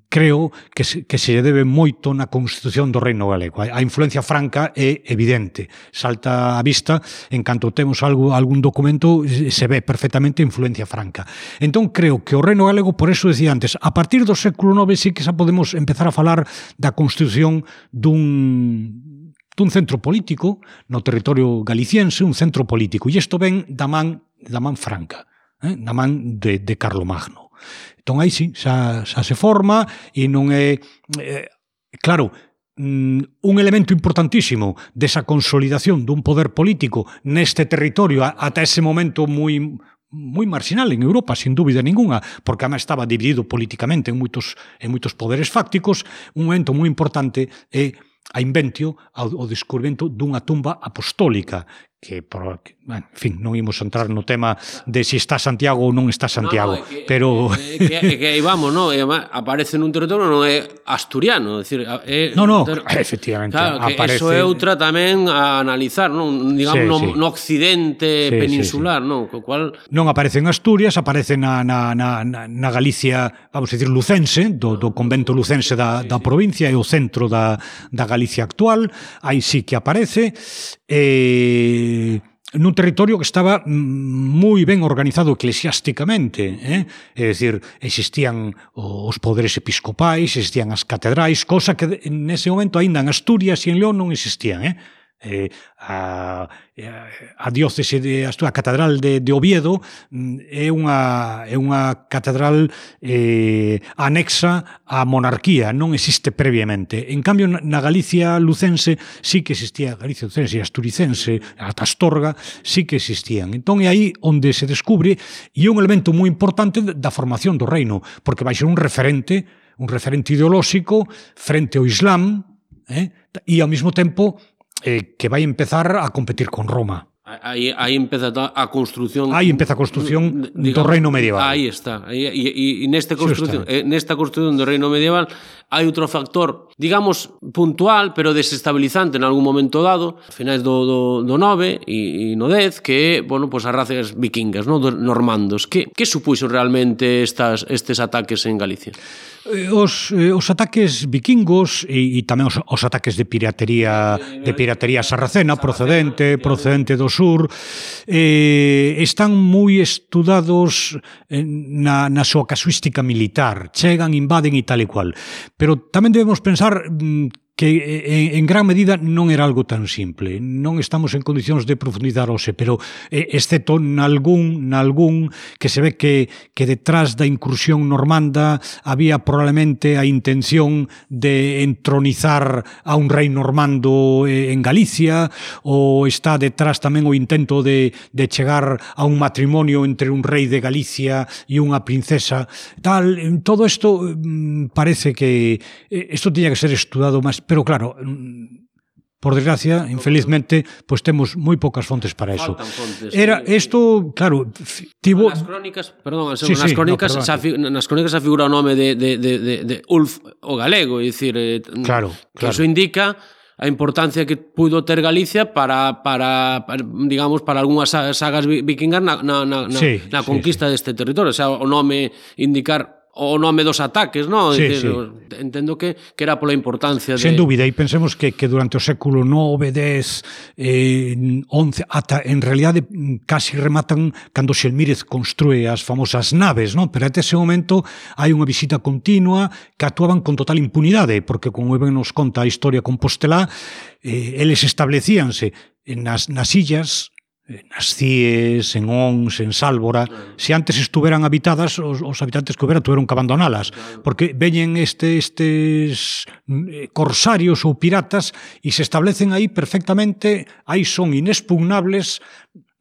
creo que se debe moito na constitución do Reino Galego. A influencia franca é evidente, salta á vista en canto temos algún documento, se ve perfectamente a influencia franca. Entón creo que o Reino Galego, por eso decía antes, a partir do século IX sí que xa podemos empezar a falar da constitución dun centro político no territorio galiciense, un centro político, e isto ven da man franca, da man de Carlomagno. Entón aí sí, xa se forma e non é... Claro, un elemento importantísimo desa consolidación dun poder político neste territorio ata ese momento moi marginal en Europa, sin dúbida ninguna, porque además estaba dividido políticamente en moitos poderes fácticos. Un momento moi importante é a inventio ao descubrimento dunha tumba apostólica que, en fin, non imos entrar no tema de si está Santiago ou non está Santiago, pero... Que aí vamos, non? Aparece nun territorio non é asturiano, é dicir... Efectivamente, claro, que aparece... Eso é outra tamén a analizar, non? Digamos, no occidente peninsular, non? Co cual... Non aparece en Asturias, aparece na Galicia, vamos a decir, lucense, do convento lucense da provincia, é o centro da Galicia actual, aí sí que aparece, nun territorio que estaba moi ben organizado eclesiásticamente, é dicir, existían os poderes episcopais, existían as catedrais, cosa que nese momento aínda en Asturias e en León non existían, a diócese de Asturias, a catedral de Oviedo é unha catedral anexa á monarquía, non existe previamente. En cambio, na Galicia lucense sí que existía, Galicia lucense e asturicense, ata Astorga, sí que existían. Entón é aí onde se descubre, e é un elemento moi importante da formación do reino, porque vai ser un referente ideolóxico frente ao Islam, e ao mesmo tempo que vai empezar a competir con Roma. Aí empeza a construción... Aí empeza a construción do reino medieval. Aí está. E nesta construción do reino medieval hai outro factor, digamos, puntual, pero desestabilizante en algún momento dado, a finais do 9 e no 10, que é, bueno, pues as razas vikingas, no? Dos normandos. Que supuxo realmente estes ataques en Galicia? Os ataques vikingos e tamén os ataques de piratería sarracena procedente do sur están moi estudados na súa casuística militar, chegan, invaden e tal e cual, pero tamén debemos pensar que en gran medida non era algo tan simple. Non estamos en condicións de profundizar hoxe, pero excepto nalgún que se ve que detrás da incursión normanda había probablemente a intención de entronizar a un rei normando en Galicia, ou está detrás tamén o intento de chegar a un matrimonio entre un rei de Galicia e unha princesa. Todo isto parece que isto tiña que ser estudado máis. Pero claro, por desgracia, infelizmente, pois temos moi poucas fontes para eso. Era isto, claro, tivo nas crónicas, perdón, nas crónicas xa figura o nome de Ulf o galego, é dicir, que iso indica a importancia que puido ter Galicia para digamos, para algunhas sagas vikingas na conquista deste territorio, o sea, o nome indicar o nome dos ataques, non? Entendo que era pola importancia de... Sen dúbida, e pensemos que durante o século IX, X, XI, ata en realidade casi rematan cando Xelmírez construe as famosas naves, non? Pero até ese momento hai unha visita continua que actuaban con total impunidade, porque como ben nos conta a historia compostelá, eles establecíanse nas illas, nas Cíes, en Ons, en Sálvora, se antes estuveran habitadas, os habitantes que houbera tuveron que abandonalas, porque veñen estes corsarios ou piratas e se establecen aí perfectamente, aí son inexpugnables,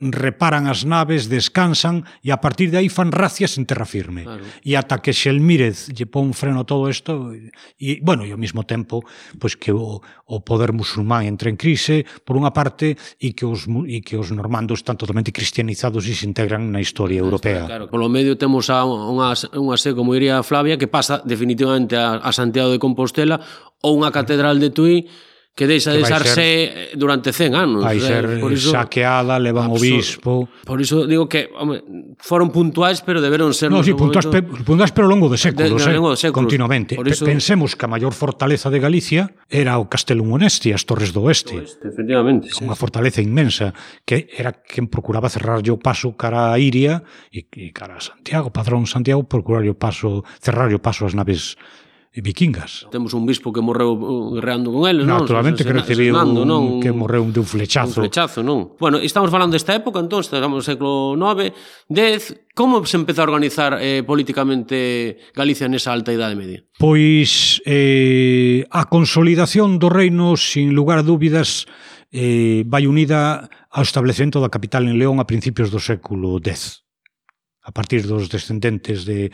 reparan as naves, descansan e a partir de aí fan racias en terra firme. E ata que Xelmírez lle pon freno a todo isto e, bueno, e ao mesmo tempo pois que o poder musulmán entra en crise por unha parte e que os normandos están totalmente cristianizados e se integran na historia europea. Claro, polo medio temos unha sé, como diría Flavia, que pasa definitivamente a Santiago de Compostela ou unha catedral de Tui que deixa de ser durante 100 anos. Vai ser saqueada, levan o bispo... Por iso digo que foron puntuais, pero deberon ser... No, sí, puntuais pero ao longo de séculos, continuamente. Pensemos que a maior fortaleza de Galicia era o Castelo Monesti, as Torres do Oeste. Efectivamente. Unha fortaleza inmensa, que era quen procuraba cerrarlle o paso cara a Iria e cara a Santiago, Padrón Santiago, cerrarlle o paso ás naves vikingas. Temos un bispo que morreu guerreando con eles, non? Naturalmente que recibiu que morreu de un flechazo. Un flechazo, non? Bueno, estamos falando desta época, entón, estamos no século IX, X. Como se empezou a organizar políticamente Galicia nesa alta idade media? Pois a consolidación do reino, sin lugar a dúbidas, vai unida ao establecemento da capital en León a principios do século X. A partir dos descendentes de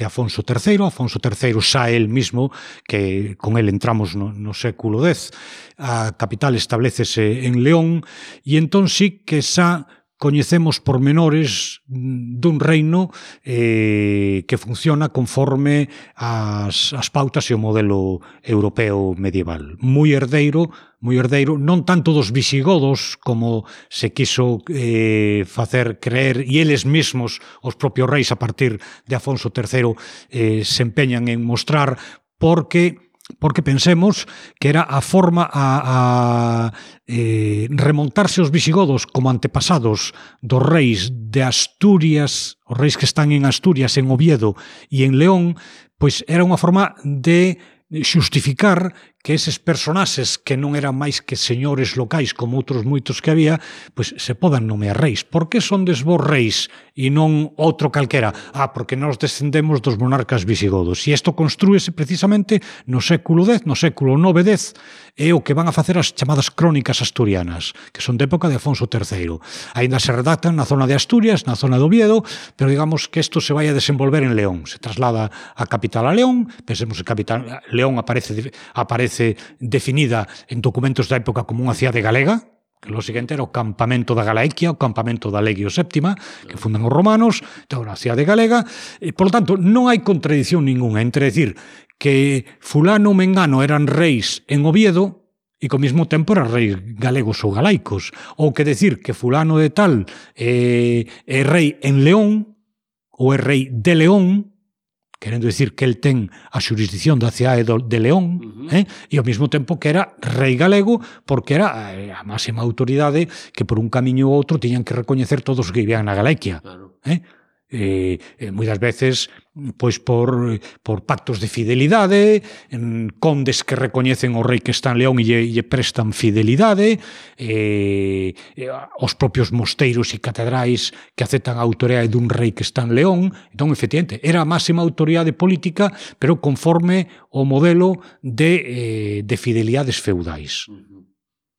Afonso III. Afonso III xa el mismo, que con el entramos no século X, a capital establecese en León, e entón sí que xa coñecemos pormenores dun reino que funciona conforme as pautas e o modelo europeo medieval. Moi herdeiro, non tanto dos visigodos como se quiso facer creer, e eles mesmos, os propios reis a partir de Afonso III, se empeñan en mostrar, porque pensemos que era a forma a remontarse os visigodos como antepasados dos reis de Asturias, os reis que están en Asturias, en Oviedo e en León, pois era unha forma de xustificar que eses personaxes que non eran máis que señores locais como outros moitos que había, pois se podan nomear reis. Por que son vos reis e non outro calquera? Porque nós descendemos dos monarcas visigodos. E isto construíse precisamente no século X, no século IX, X, é o que van a facer as chamadas crónicas asturianas, que son de época de Afonso III. Ainda se redactan na zona de Asturias, na zona de Oviedo, pero digamos que isto se vai a desenvolver en León. Se traslada a capital a León, pensemos que capital León aparece definida en documentos da época como unha cidade galega, que lo seguinte era o campamento da Galaequia, o campamento da Legio VII, que fundan os romanos, então a cidade galega, e, por lo tanto, non hai contradición ninguna entre decir que fulano ou mengano eran reis en Oviedo e que ao mesmo tempo eran reis galegos ou galaicos, ou que decir que fulano de tal é rei en León ou é rei de León, querendo dicir que el ten a xurisdicción da cidade de León, e ao mesmo tempo que era rei galego, porque era a máxima autoridade que por un camiño ou outro tiñan que recoñecer todos os que vivían na Galaequia. Claro. Moitas veces pois por pactos de fidelidade, condes que recoñecen o rei que está en León e lle prestan fidelidade, os propios mosteiros e catedrais que aceptan a autoridade dun rei que está en León. Entón, efectivamente, era a máxima autoridade política, pero conforme o modelo de fidelidades feudais.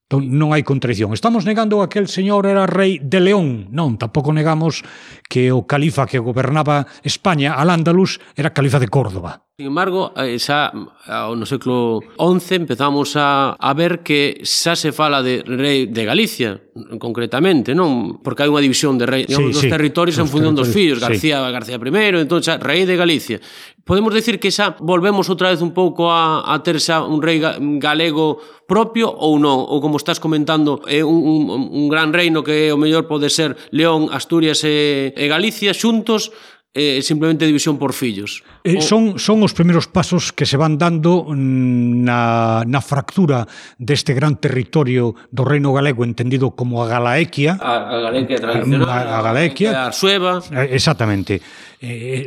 Entón, non hai contradición. Estamos negando que aquel señor era rei de León. Non, tampouco negamos que o califa que gobernaba España, Al-Ándalus, era califa de Córdoba. Sin embargo, xa no século XI empezamos a ver que xa se fala de rei de Galicia, concretamente, non? Porque hai unha división de rei, dos territorios en función dos fillos, García I, entón xa rei de Galicia. Podemos decir que xa volvemos outra vez un pouco a ter xa un rei galego propio ou non? Ou como estás comentando, é un gran reino que o mellor pode ser León, Asturias e Galicia xuntos, simplemente división por fillos. Son os primeiros pasos que se van dando na fractura deste gran territorio do reino galego entendido como a Galaequia. A Galaequia tradicional, a Galaequia, a Arsueva. Exactamente. É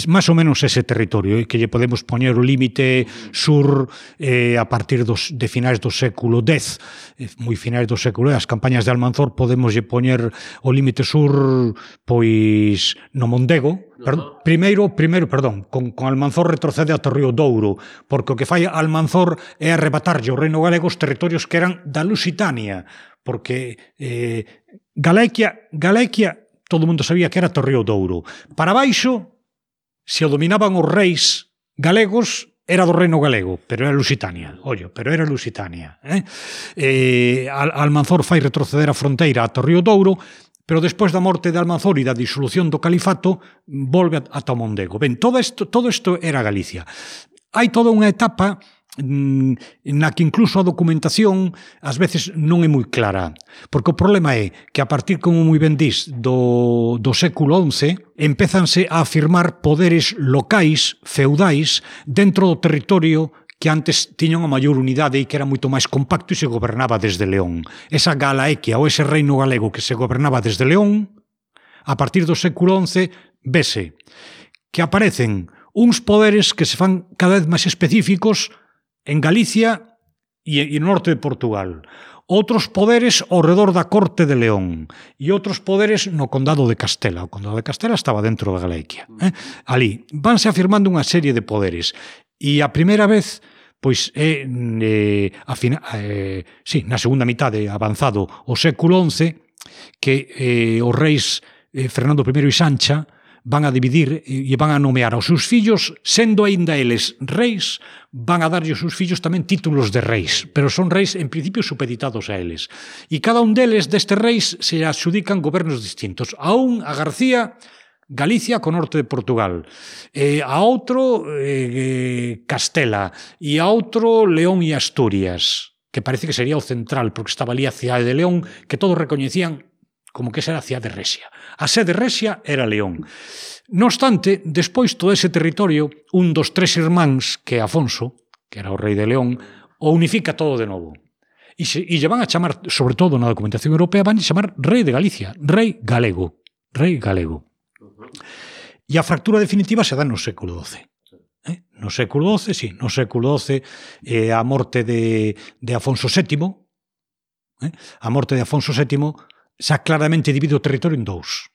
máis ou menos ese territorio que lle podemos poñer o límite sur a partir de finais do século X, moi finais do século X. As campañas de Almanzor podemos lle poñer o límite sur pois no Mondego. Primeiro, con Almanzor retrocede ata o río Douro, porque o que fai Almanzor é arrebatarlle ao reino galego os territorios que eran da Lusitania, porque Galaequia todo o mundo sabía que era o río Douro. Para baixo, se o dominaban os reis galegos, era do reino galego, pero era Lusitania. Almanzor fai retroceder a fronteira ata o río Douro, pero despois da morte de Almanzor e da disolución do califato, volve ata o Mondego. Ben, todo isto era Galicia. Hai toda unha etapa na que incluso a documentación ás veces non é moi clara, porque o problema é que a partir, como moi ben dís, do século XI empezanse a afirmar poderes locais, feudais, dentro do territorio que antes tiñan a maior unidade e que era moito máis compacto e se gobernaba desde León. Esa Galaequia ou ese reino galego que se gobernaba desde León, a partir do século XI, vese que aparecen uns poderes que se fan cada vez máis específicos en Galicia e no norte de Portugal. Outros poderes ao redor da corte de León e outros poderes no condado de Castela. O condado de Castela estaba dentro da Galaequia. Ali vanse afirmando unha serie de poderes. E a primeira vez, pois, na segunda mitade avanzado o século XI, que os reis Fernando I e Sancha van a dividir e van a nomear aos seus fillos, sendo aínda eles reis, van a darlle aos seus fillos tamén títulos de reis, pero son reis en principio supeditados a eles. E cada un deles, destes reis, se adxudican gobernos distintos. A un, a García, Galicia co norte de Portugal, a outro Castela, e a outro León e Asturias, que parece que sería o central, porque estaba ali a cidade de León, que todos recoñecían como que esa era a cidade de Resia. A sede Resia era León. No obstante, despois todo ese territorio, un dos tres irmáns, que é Afonso, que era o rei de León, o unifica todo de novo. E lle van a chamar, sobre todo na documentación europea, van a chamar rei de Galicia, rei galego. E a fractura definitiva se dá no século XII. No século XII, a morte de Afonso VII, a morte de Afonso VII xa claramente divide o territorio en dous.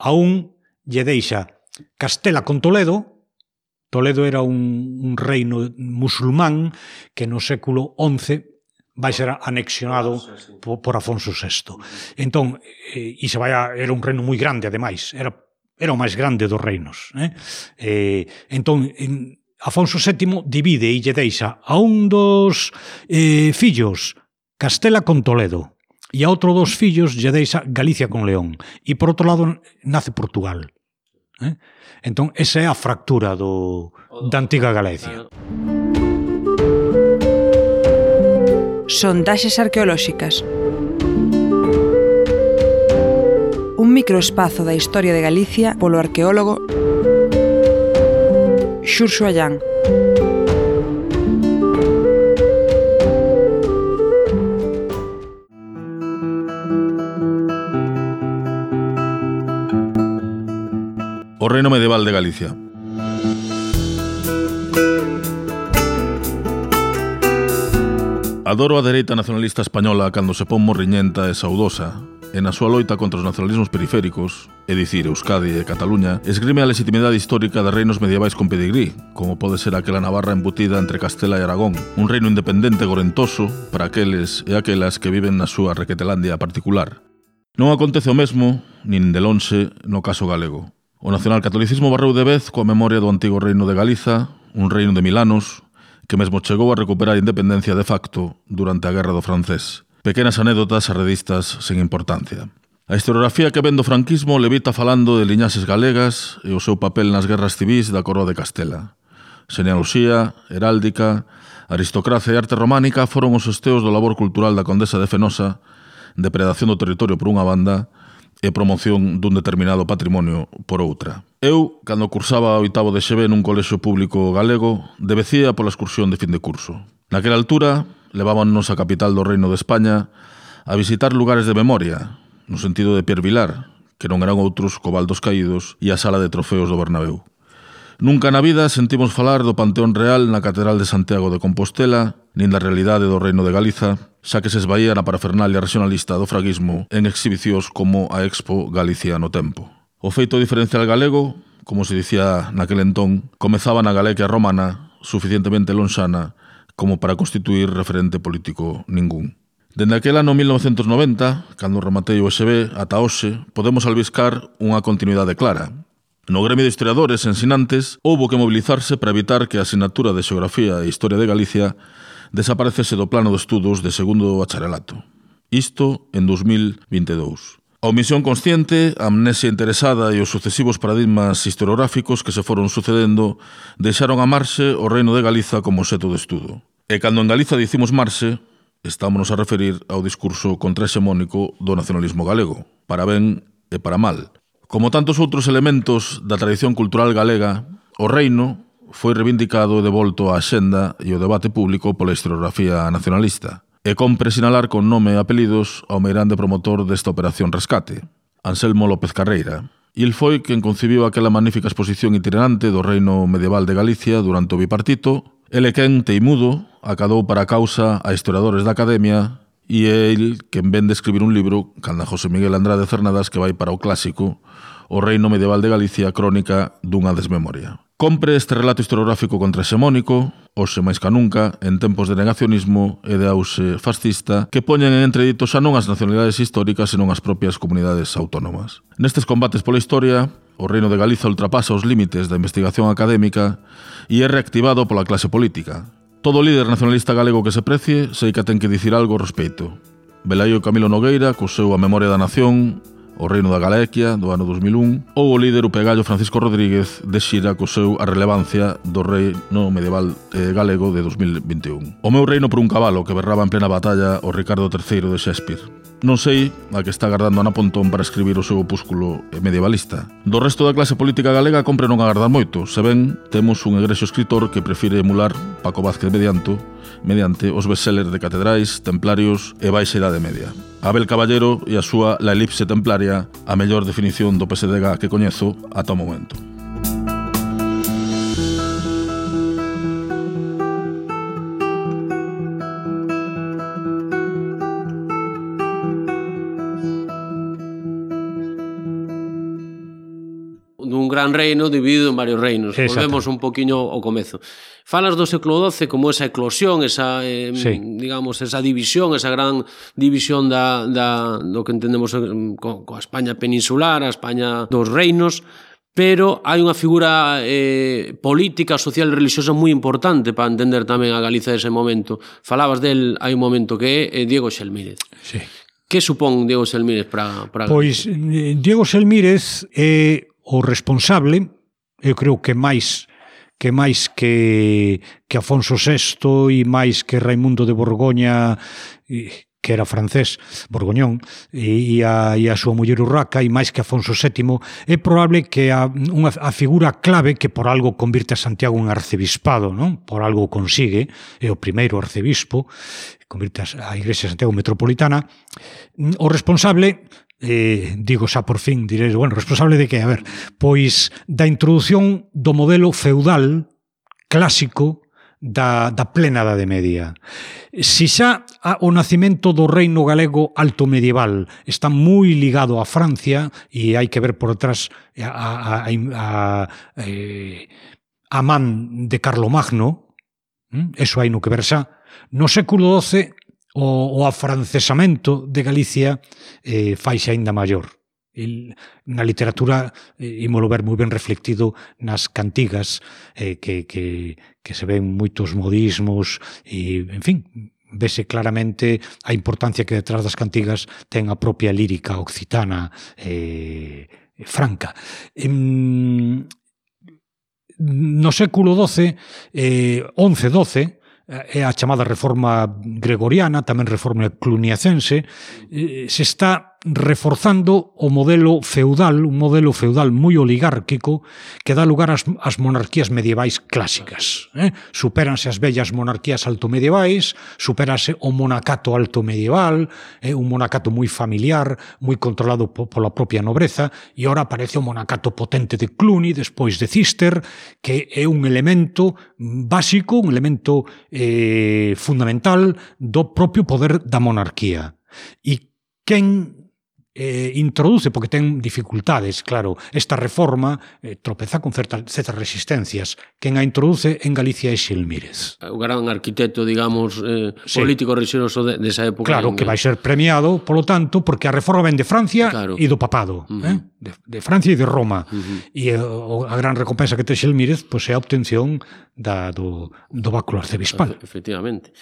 A un lle deixa Castela con Toledo. Toledo era un reino musulmán que no século XI vai ser anexionado por Afonso VI. Entón, era un reino moi grande, ademais. Era o máis grande dos reinos. Entón, Afonso VII divide e lle deixa a un dos fillos Castela con Toledo, e a outro dos fillos lle deixa Galicia con León. E por outro lado nace Portugal. Entón, esa é a fractura da antiga Galicia. Sondaxes arqueolóxicas. Un microespazo da historia de Galicia polo arqueólogo Xurxo Allán. O reino medieval de Galicia. Adoro a dereita nacionalista española cando se pon morriñenta e saudosa, e na súa loita contra os nacionalismos periféricos, é dicir, Euskadi e Cataluña, esgrime a legitimidade histórica de reinos medievais con pedigrí, como pode ser aquela Navarra embutida entre Castela e Aragón, un reino independente gorentoso para aqueles e aquelas que viven na súa requetelandia particular. Non acontece o mesmo, nin de lonxe, no caso galego. O nacionalcatolicismo barreu de vez coa memoria do antigo reino de Galiza, un reino de 1000 anos, que mesmo chegou a recuperar a independencia de facto durante a Guerra do Francés. Pequenas anécdotas arredistas sen importancia. A historiografía que ven do franquismo levita falando de liñaxes galegas e o seu papel nas guerras civís da Coroa de Castela. Xenealoxía, heráldica, aristocracia e arte románica foron os esteos do labor cultural da Condesa de Fenosa, depredación do territorio por unha banda e promoción dun determinado patrimonio por outra. Eu, cando cursaba o 8º de XB nun colexio público galego, debecía pola excursión de fin de curso. Naquela altura, levábanos a capital do Reino de España a visitar lugares de memoria, no sentido de Pierre Vilar, que non eran outros Cobaldos Caídos e a sala de trofeos do Bernabéu. Nunca na vida sentimos falar do Panteón Real na Catedral de Santiago de Compostela, nin da realidade do Reino de Galiza, xa que se esvaía na parafernalia regionalista do fraguismo en exhibicións como a Expo Galicia no Tempo. O feito diferencial galego, como se dicía naquel entón, comezaba na Galicia romana, suficientemente lonxana como para constituir referente político ningún. Dende aquel ano 1990, cando rematei o ESB, ata hoxe, podemos albiscar unha continuidade clara. No gremio de historiadores ensinantes, houbo que mobilizarse para evitar que a asignatura de Xeografía e Historia de Galicia desaparecese do plano de estudos de segundo bacharelato. Isto en 2022. A omisión consciente, a amnesia interesada e os sucesivos paradigmas historiográficos que se foron sucedendo deixaron a marxe o Reino de Galiza como obxecto de estudo. E cando en Galiza dicimos marxe, estámonos a referir ao discurso contrahexemónico do nacionalismo galego, para ben e para mal. Como tantos outros elementos da tradición cultural galega, o reino foi reivindicado e devolto á axenda e o debate público pola historiografía nacionalista. E compre sinalar con nome e apelidos ao meirande promotor desta operación rescate, Anselmo López Carreira. Il foi quen concibiu aquela magnífica exposición itinerante do reino medieval de Galicia durante o bipartito. Ele quen, teimudo, acadou para a causa a historiadores da Academia e é el quen ven de escribir un libro, canda José Miguel Andrade Cernadas, que vai para o clásico O reino medieval de Galicia, crónica dunha desmemoria. Compre este relato historiográfico contrahexemónico, hoxe máis ca nunca, en tempos de negacionismo e de auxe fascista, que poñen en entredito xa non as nacionalidades históricas, senón as propias comunidades autónomas. Nestes combates pola historia, o Reino de Galiza ultrapasa os límites da investigación académica e é reactivado pola clase política. Todo líder nacionalista galego que se precie, sei que ten que dicir algo ao respecto. Velaí o Camilo Nogueira, co seu A Memoria da Nación, o Reino da Galicia, do ano 2001, ou o líder upegallo Francisco Rodríguez de xira co seu A Relevancia do Reino Medieval Galego de 2021. O meu reino por un cabalo que berraba en plena batalla o Ricardo III de Shakespeare. Non sei a que está agardando Ana Pontón para escribir o seu opúsculo medievalista. Do resto da clase política galega compre non agardar moito, se ben temos un egrexo escritor que prefire emular Paco Vázquez mediante os bestsellers de catedrais, templarios e baixa idade media. Abel Caballero e a súa La elipse templaria, a mellor definición do PSDG que coñezo ata o momento. Dun gran reino dividido en varios reinos. Volvemos un poquinho ao comezo. Falas do século XII como esa eclosión, esa, digamos, esa división, esa gran división do que entendemos coa España peninsular, a España dos reinos, pero hai unha figura política, social e religiosa moi importante para entender tamén a Galiza dese momento. Falabas del, hai un momento que é Diego Xelmírez. Sí. Que supón Diego Xelmírez para Galiza? Pois Diego Xelmírez é o responsable, eu creo que máis que Afonso VI e máis que Raimundo de Borgoña, que era francés, Borgoñón, e a súa muller Urraca, e máis que Afonso VII, é probable que a figura clave que por algo convirte a Santiago en arcebispado, non? Por algo consigue, é o primeiro arcebispo, convirte a Igrexa de Santiago metropolitana. O responsable, digo xa por fin, diréis, bueno, responsable de que? A ver, pois da introdución do modelo feudal clásico da plena Idade Media. Si xa o nacimento do reino galego alto medieval está moi ligado a Francia, e hai que ver por detrás a man de Carlomagno, eso hai no que ver xa. No século XII o afrancesamento de Galicia faixe aínda maior. Na literatura ímolo ver moi ben reflectido nas cantigas, que se ven moitos modismos e, en fin, vese claramente a importancia que detrás das cantigas ten a propia lírica occitana franca. No século XII, XI-XII, é a chamada reforma gregoriana, tamén reforma cluniacense, se está reforzando o modelo feudal, un modelo feudal moi oligárquico que dá lugar ás monarquías medievais clásicas. Supéranse as vellas monarquías altomedievais, supérase o monacato altomedieval, un monacato moi familiar, moi controlado pola propia nobreza, e ora aparece o monacato potente de Cluny, despois de Cister, que é un elemento básico, un elemento fundamental do propio poder da monarquía. E quen introduce, porque ten dificultades, claro, esta reforma tropeza con certas resistencias. Quen a introduce en Galicia é Xilmírez. O gran arquitecto, digamos, político religioso desa época. Claro, que vai ser premiado, polo tanto, porque a reforma ven de Francia e do papado, de Francia e de Roma. E a gran recompensa que ten Xilmírez é a obtención do báculo arcebispal. Efectivamente.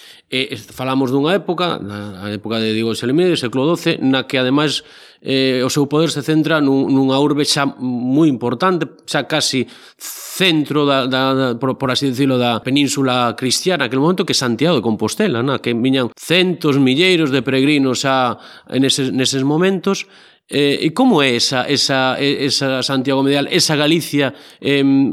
Falamos dunha época, a época de Diego Xilmírez, século XII, na que, ademais, o seu poder se centra nunha urbe xa moi importante, xa casi centro por así decirlo, da península cristiana aquel momento, que é Santiago de Compostela, que viñan centos, milleiros de peregrinos xa neses momentos. E como é esa Santiago medieval, esa Galicia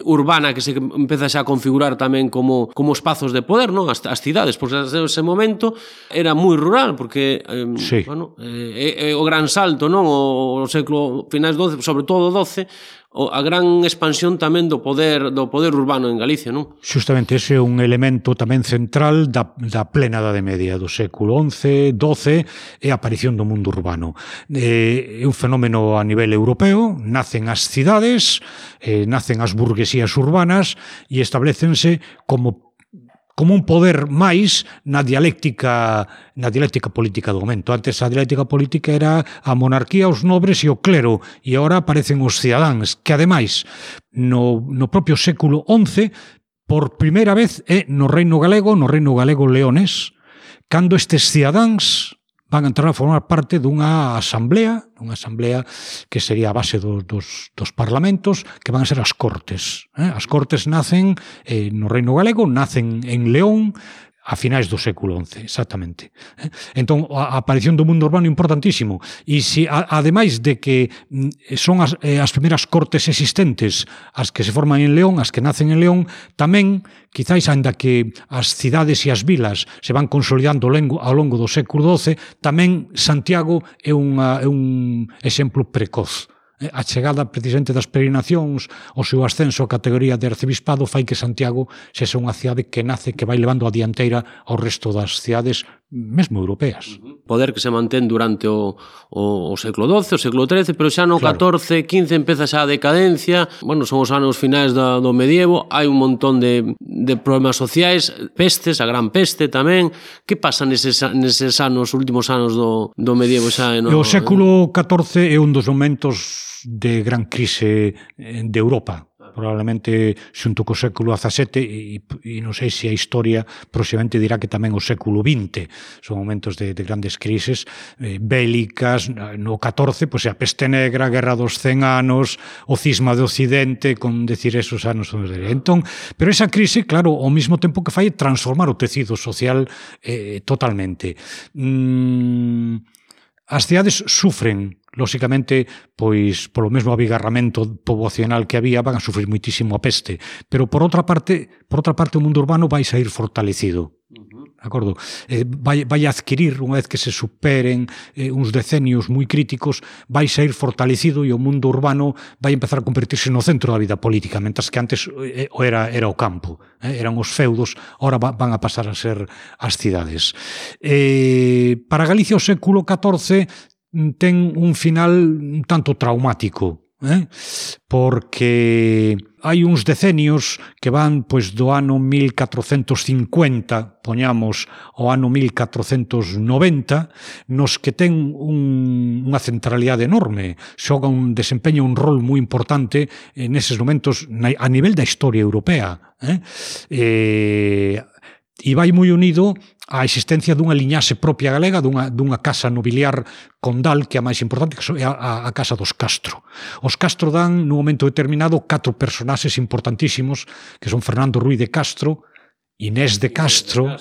urbana que se empeza xa a configurar tamén como espazos de poder, non? As cidades, porque ese momento era moi rural, porque o gran salto, non? O século finais XII, sobre todo o XII, a gran expansión tamén do poder urbano en Galicia, non? Justamente ese é un elemento tamén central da plena Idade Media, do século XI, XII, e a aparición do mundo urbano. É un fenómeno a nivel europeo, nacen as cidades, nacen as burguesías urbanas e establecense como un poder máis na dialéctica política do momento. Antes a dialéctica política era a monarquía, os nobres e o clero, e agora aparecen os cidadáns, que ademais no propio século XI, por primeira vez é no reino galego leonés, cando estes cidadáns van a entrar a formar parte dunha asamblea que sería a base dos parlamentos, que van a ser as Cortes. As Cortes nacen no Reino Galego, nacen en León, a finais do século XI, exactamente. Entón, a aparición do mundo urbano é importantísimo. E se, ademais de que son as primeiras cortes existentes as que se forman en León, as que nacen en León, tamén, quizáis, ainda que as cidades e as vilas se van consolidando ao longo do século XII, tamén Santiago é un exemplo precoz. A chegada precisamente das peregrinacións, o seu ascenso a categoría de arcebispado fai que Santiago sexa unha cidade que nace, que vai levando a dianteira ao resto das cidades mesmo europeas. Poder que se mantén durante o século XII, o século XIII, pero xa no XIV, XV empeza xa a decadencia. Bueno, son os anos finais do medievo, hai un montón de problemas sociais, pestes, a gran peste tamén. Que pasa neses anos, últimos anos do medievo xa? O século XIV é un dos momentos de gran crise de Europa, probablemente xunto co século XVII, e non sei se a historia próximamente dirá que tamén o século XX son momentos de grandes crises bélicas. No XIV, pois a peste negra, a guerra dos 100 anos, o cisma de Occidente, con decir esos anos. Entón, pero esa crise, claro, ao mesmo tempo que fai transformar o tecido social totalmente. As cidades sufren, lóxicamente, pois polo mesmo abigarramento poboacional que había, van a sufrir muitísimo a peste, pero por outra parte o mundo urbano vai sair fortalecido. acordo? Vai adquirir, unha vez que se superen uns decenios moi críticos, vai sair fortalecido e o mundo urbano vai empezar a convertirse no centro da vida política, mentras que antes era o campo, eran os feudos, ora van a pasar a ser as cidades. Para Galicia o século XIV ten un final un tanto traumático, porque hai uns decenios que van do ano 1450, poñamos, ao ano 1490, nos que ten unha centralidade enorme, desempeña un rol moi importante neses momentos a nivel da historia europea. E vai moi unido á existencia dunha liñaxe propia galega, dunha casa nobiliar condal, que é a máis importante, que é a casa dos Castro. Os Castro dan, nun momento determinado, 4 personaxes importantísimos, que son Fernando Ruiz de Castro, Inés de Castro,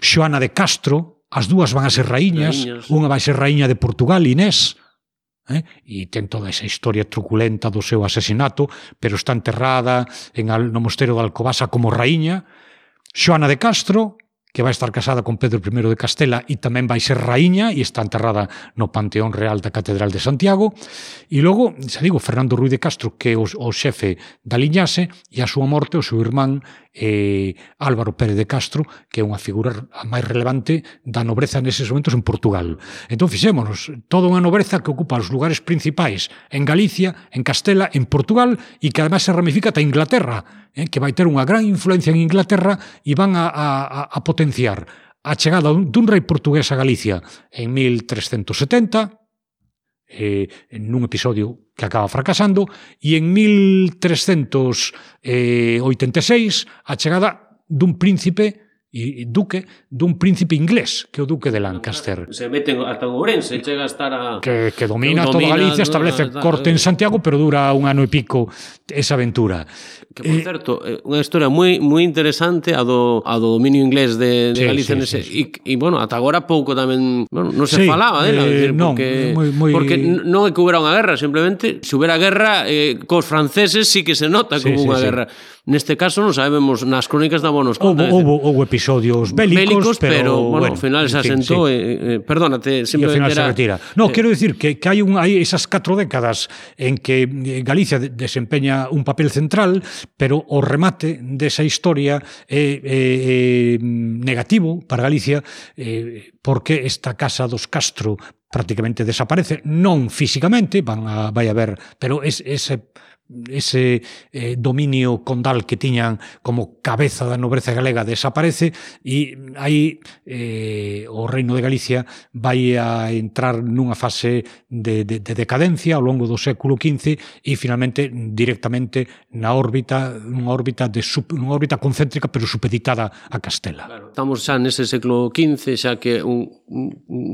Xoana de Castro, as dúas van a ser raíñas, unha vai ser raíña de Portugal, Inés, e ten toda esa historia truculenta do seu asesinato, pero está enterrada no mosteiro de Alcobaza como raíña. Xoana de Castro, que vai estar casada con Pedro I de Castela e tamén vai ser raíña e está enterrada no Panteón Real da Catedral de Santiago. E logo, xa digo, Fernando Ruiz de Castro, que é o xefe da liñaxe, e a súa morte, o seu irmán Álvaro Pérez de Castro, que é unha figura máis relevante da nobreza neses momentos en Portugal. Entón, fixémonos, toda unha nobreza que ocupa os lugares principais en Galicia, en Castela, en Portugal, e que además se ramifica ata Inglaterra, que vai ter unha gran influencia en Inglaterra e van a potenciar a chegada dun rei portugués a Galicia en 1370, nun episodio que acaba fracasando, e en 1386 a chegada dun príncipe dun príncipe inglés, que é o duque de Lancaster. Se meten ata Ourense, chega a estar a... Que domina toda Galicia, establece corte en Santiago, pero dura un ano e pico esa aventura. Que, por certo, unha historia moi interesante a do dominio inglés de Galicia. E, bueno, ata agora pouco tamén non se falaba dela. Porque non é que houbera unha guerra, simplemente, se houbera guerra cos franceses sí que se nota como unha guerra. Neste caso non sabemos, nas crónicas da nos conta. Houve episodios bélicos, pero bueno, ao final se asentou, perdónate, simplemente era... se retira. No, quero dicir que hai esas 4 décadas en que Galicia desempeña un papel central, pero o remate desa historia é negativo para Galicia, porque esta casa dos Castro prácticamente desaparece, non físicamente, vai haber, pero ese dominio condal que tiñan como cabeza da nobreza galega desaparece, e aí o Reino de Galicia vai a entrar nunha fase de decadencia ao longo do século XV e finalmente directamente unha órbita concéntrica pero supeditada a Castela. Claro, estamos xa nese século XV, xa que un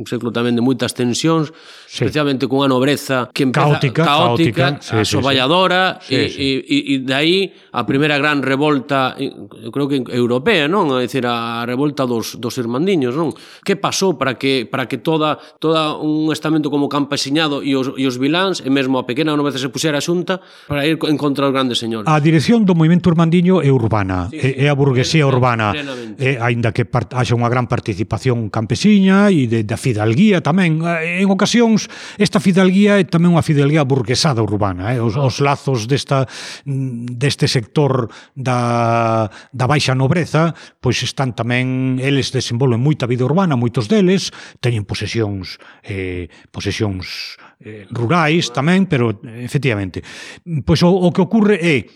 século tamén de moitas tensións, especialmente cunha nobreza que empeza caótica, asoballadora. E dai a primeira gran revolta, eu creo que europea, non? É dicir, a revolta dos irmandiños, non? Que pasou para que toda un estamento como campesiñado e os viláns, e mesmo a pequena nobreza se puxera xunta para ir en contra dos grandes señores? A dirección do movimento irmandiño é urbana, é a burguesía urbana, aínda que haxa unha gran participación campesiña e da fidalguía tamén. En ocasións, esta fidalguía é tamén unha fidalguía burguesada urbana, os lazos deste sector da baixa nobreza, pois están tamén, eles desenvolven moita vida urbana, moitos deles teñen posesións rurais tamén, pero efectivamente, pois o que ocorre é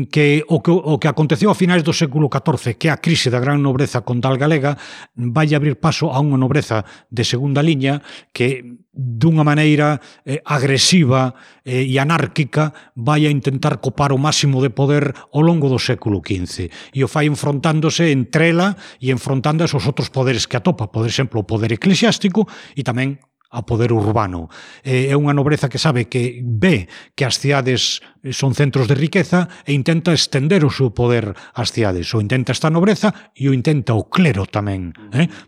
que o que aconteceu a finais do século XIV, que é a crise da gran nobreza condal galega, vai abrir paso a unha nobreza de segunda liña que dunha maneira agresiva e anárquica vai a intentar copar o máximo de poder ao longo do século XV, e o fai enfrontándose entre ela e enfrontando esos outros poderes que atopa, por exemplo, o poder eclesiástico e tamén a poder urbano. É unha nobreza que sabe que ve que as cidades son centros de riqueza e intenta estender o seu poder ás cidades. O intenta esta nobreza e o intenta o clero tamén,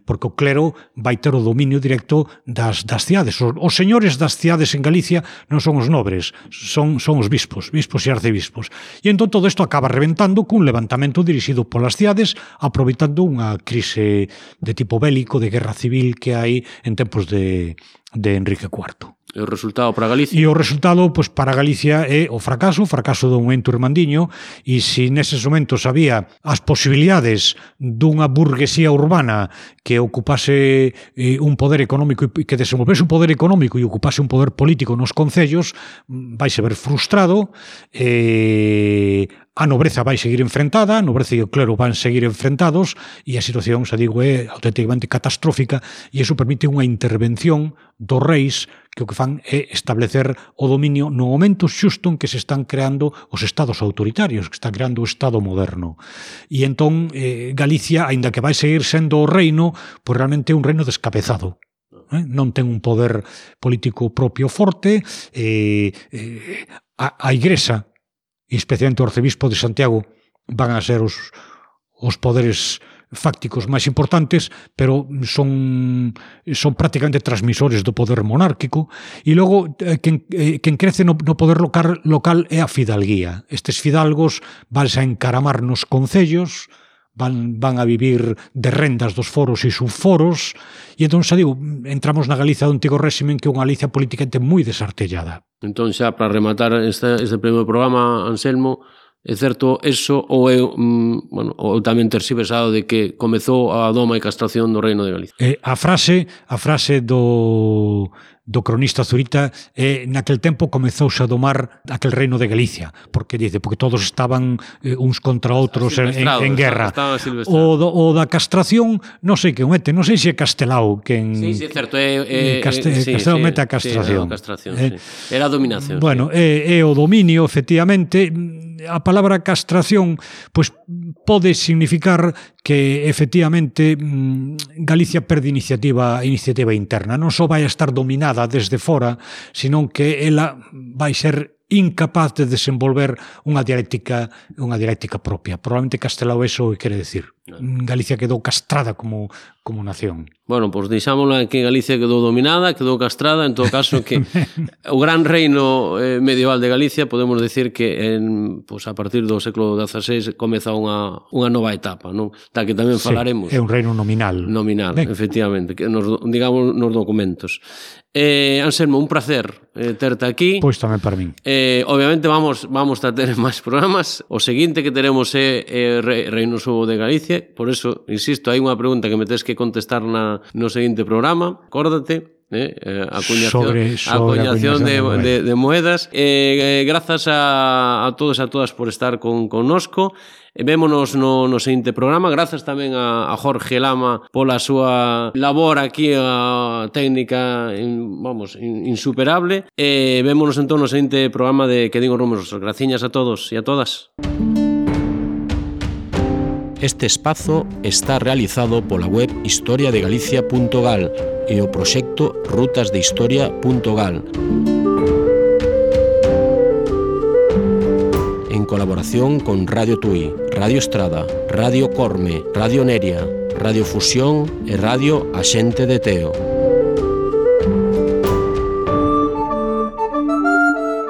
porque o clero vai ter o dominio directo das cidades. Os señores das cidades en Galicia non son os nobres, son os bispos e arcebispos. E entón todo isto acaba reventando cun levantamento dirixido polas cidades, aproveitando unha crise de tipo bélico, de guerra civil que hai en tempos de Enrique IV. E o resultado para Galicia? E o resultado, pois, para Galicia é o fracaso dun ento irmandiño, e se neses momentos había as posibilidades dunha burguesía urbana que ocupase un poder económico e que desenvolvese un poder económico e ocupase un poder político nos concellos, vaise ver frustrado, a nobreza vai seguir enfrentada, a nobreza e o clero van seguir enfrentados, e a situación, xa digo, é auténticamente catastrófica, e iso permite unha intervención dos reis que o que fan é establecer o dominio no momento xusto en que se están creando os estados autoritarios, que está creando o Estado moderno. E entón Galicia, aínda que vai seguir sendo o reino, pois realmente é un reino descabezado. Non ten un poder político propio forte, a Igrexa, e especialmente o arcebispo de Santiago, van a ser os poderes fácticos máis importantes, pero son prácticamente transmisores do poder monárquico, e logo quen crece no poder local é a fidalguía. Estes fidalgos vanse a encaramar nos concellos, van a vivir de rendas dos foros e subforos, e entón, xa digo, entramos na Galicia do antigo réximen, que é unha Galicia políticamente moi desartellada. Entón, xa, para rematar este primeiro programa, Anselmo, é certo eso ou é, ou tamén terxiversado de que comezou a doma e castración do reino de Galicia? A frase do cronista Zurita naquel tempo comezouse a domar aquel reino de Galicia, porque todos estaban uns contra outros en guerra. O da castración, non sei que mete, non sei se é Castelao quen... Sí, é certo, Castelao mete a castración. Era a dominación. Bueno, é o dominio, efectivamente. A palabra castración pois pode significar que efectivamente Galicia perde iniciativa interna. Non só vai a estar dominada desde fora, senón que ela vai ser incapaz de desenvolver unha dialéctica propia. Probablemente Castelao eso quere decir. Galicia quedou castrada como nación. Bueno, pois deixámosla que Galicia quedou dominada, quedou castrada, en todo caso que o gran reino medieval de Galicia podemos decir que a partir do século XVI comeza unha nova etapa, non? Da que tamén falaremos. Sí, é un reino nominal. Nominal, efectivamente, que digamos nos documentos. Anselmo, un placer terte aquí. Pois tamén para min. Obviamente vamos a ter máis programas. O seguinte que teremos é Reino Subo de Galicia. Por eso, insisto, hai unha pregunta que me tes que contestar no seguinte programa. Acórdate. Acuñación de moedas. Grazas a todos e a todas por estar connosco. Vémonos no seguinte programa. Grazas tamén a Jorge Lama pola súa labor aquí, a técnica insuperable. Vémonos entón no seguinte programa de Que Digo Números. Graciñas a todos e a todas. Este espazo está realizado pola web historiadegalicia.gal e o proxecto rutasdehistoria.gal en colaboración con Radio Tui, Radio Estrada, Radio Corme, Radio Neria, Radio Fusión e Radio Axente de Teo.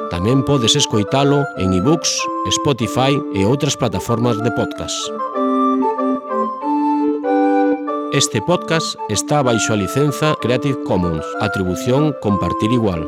Tamén podes escoitalo en iBooks, Spotify e outras plataformas de podcast. Este podcast está baixo a licenza Creative Commons, atribución compartir igual.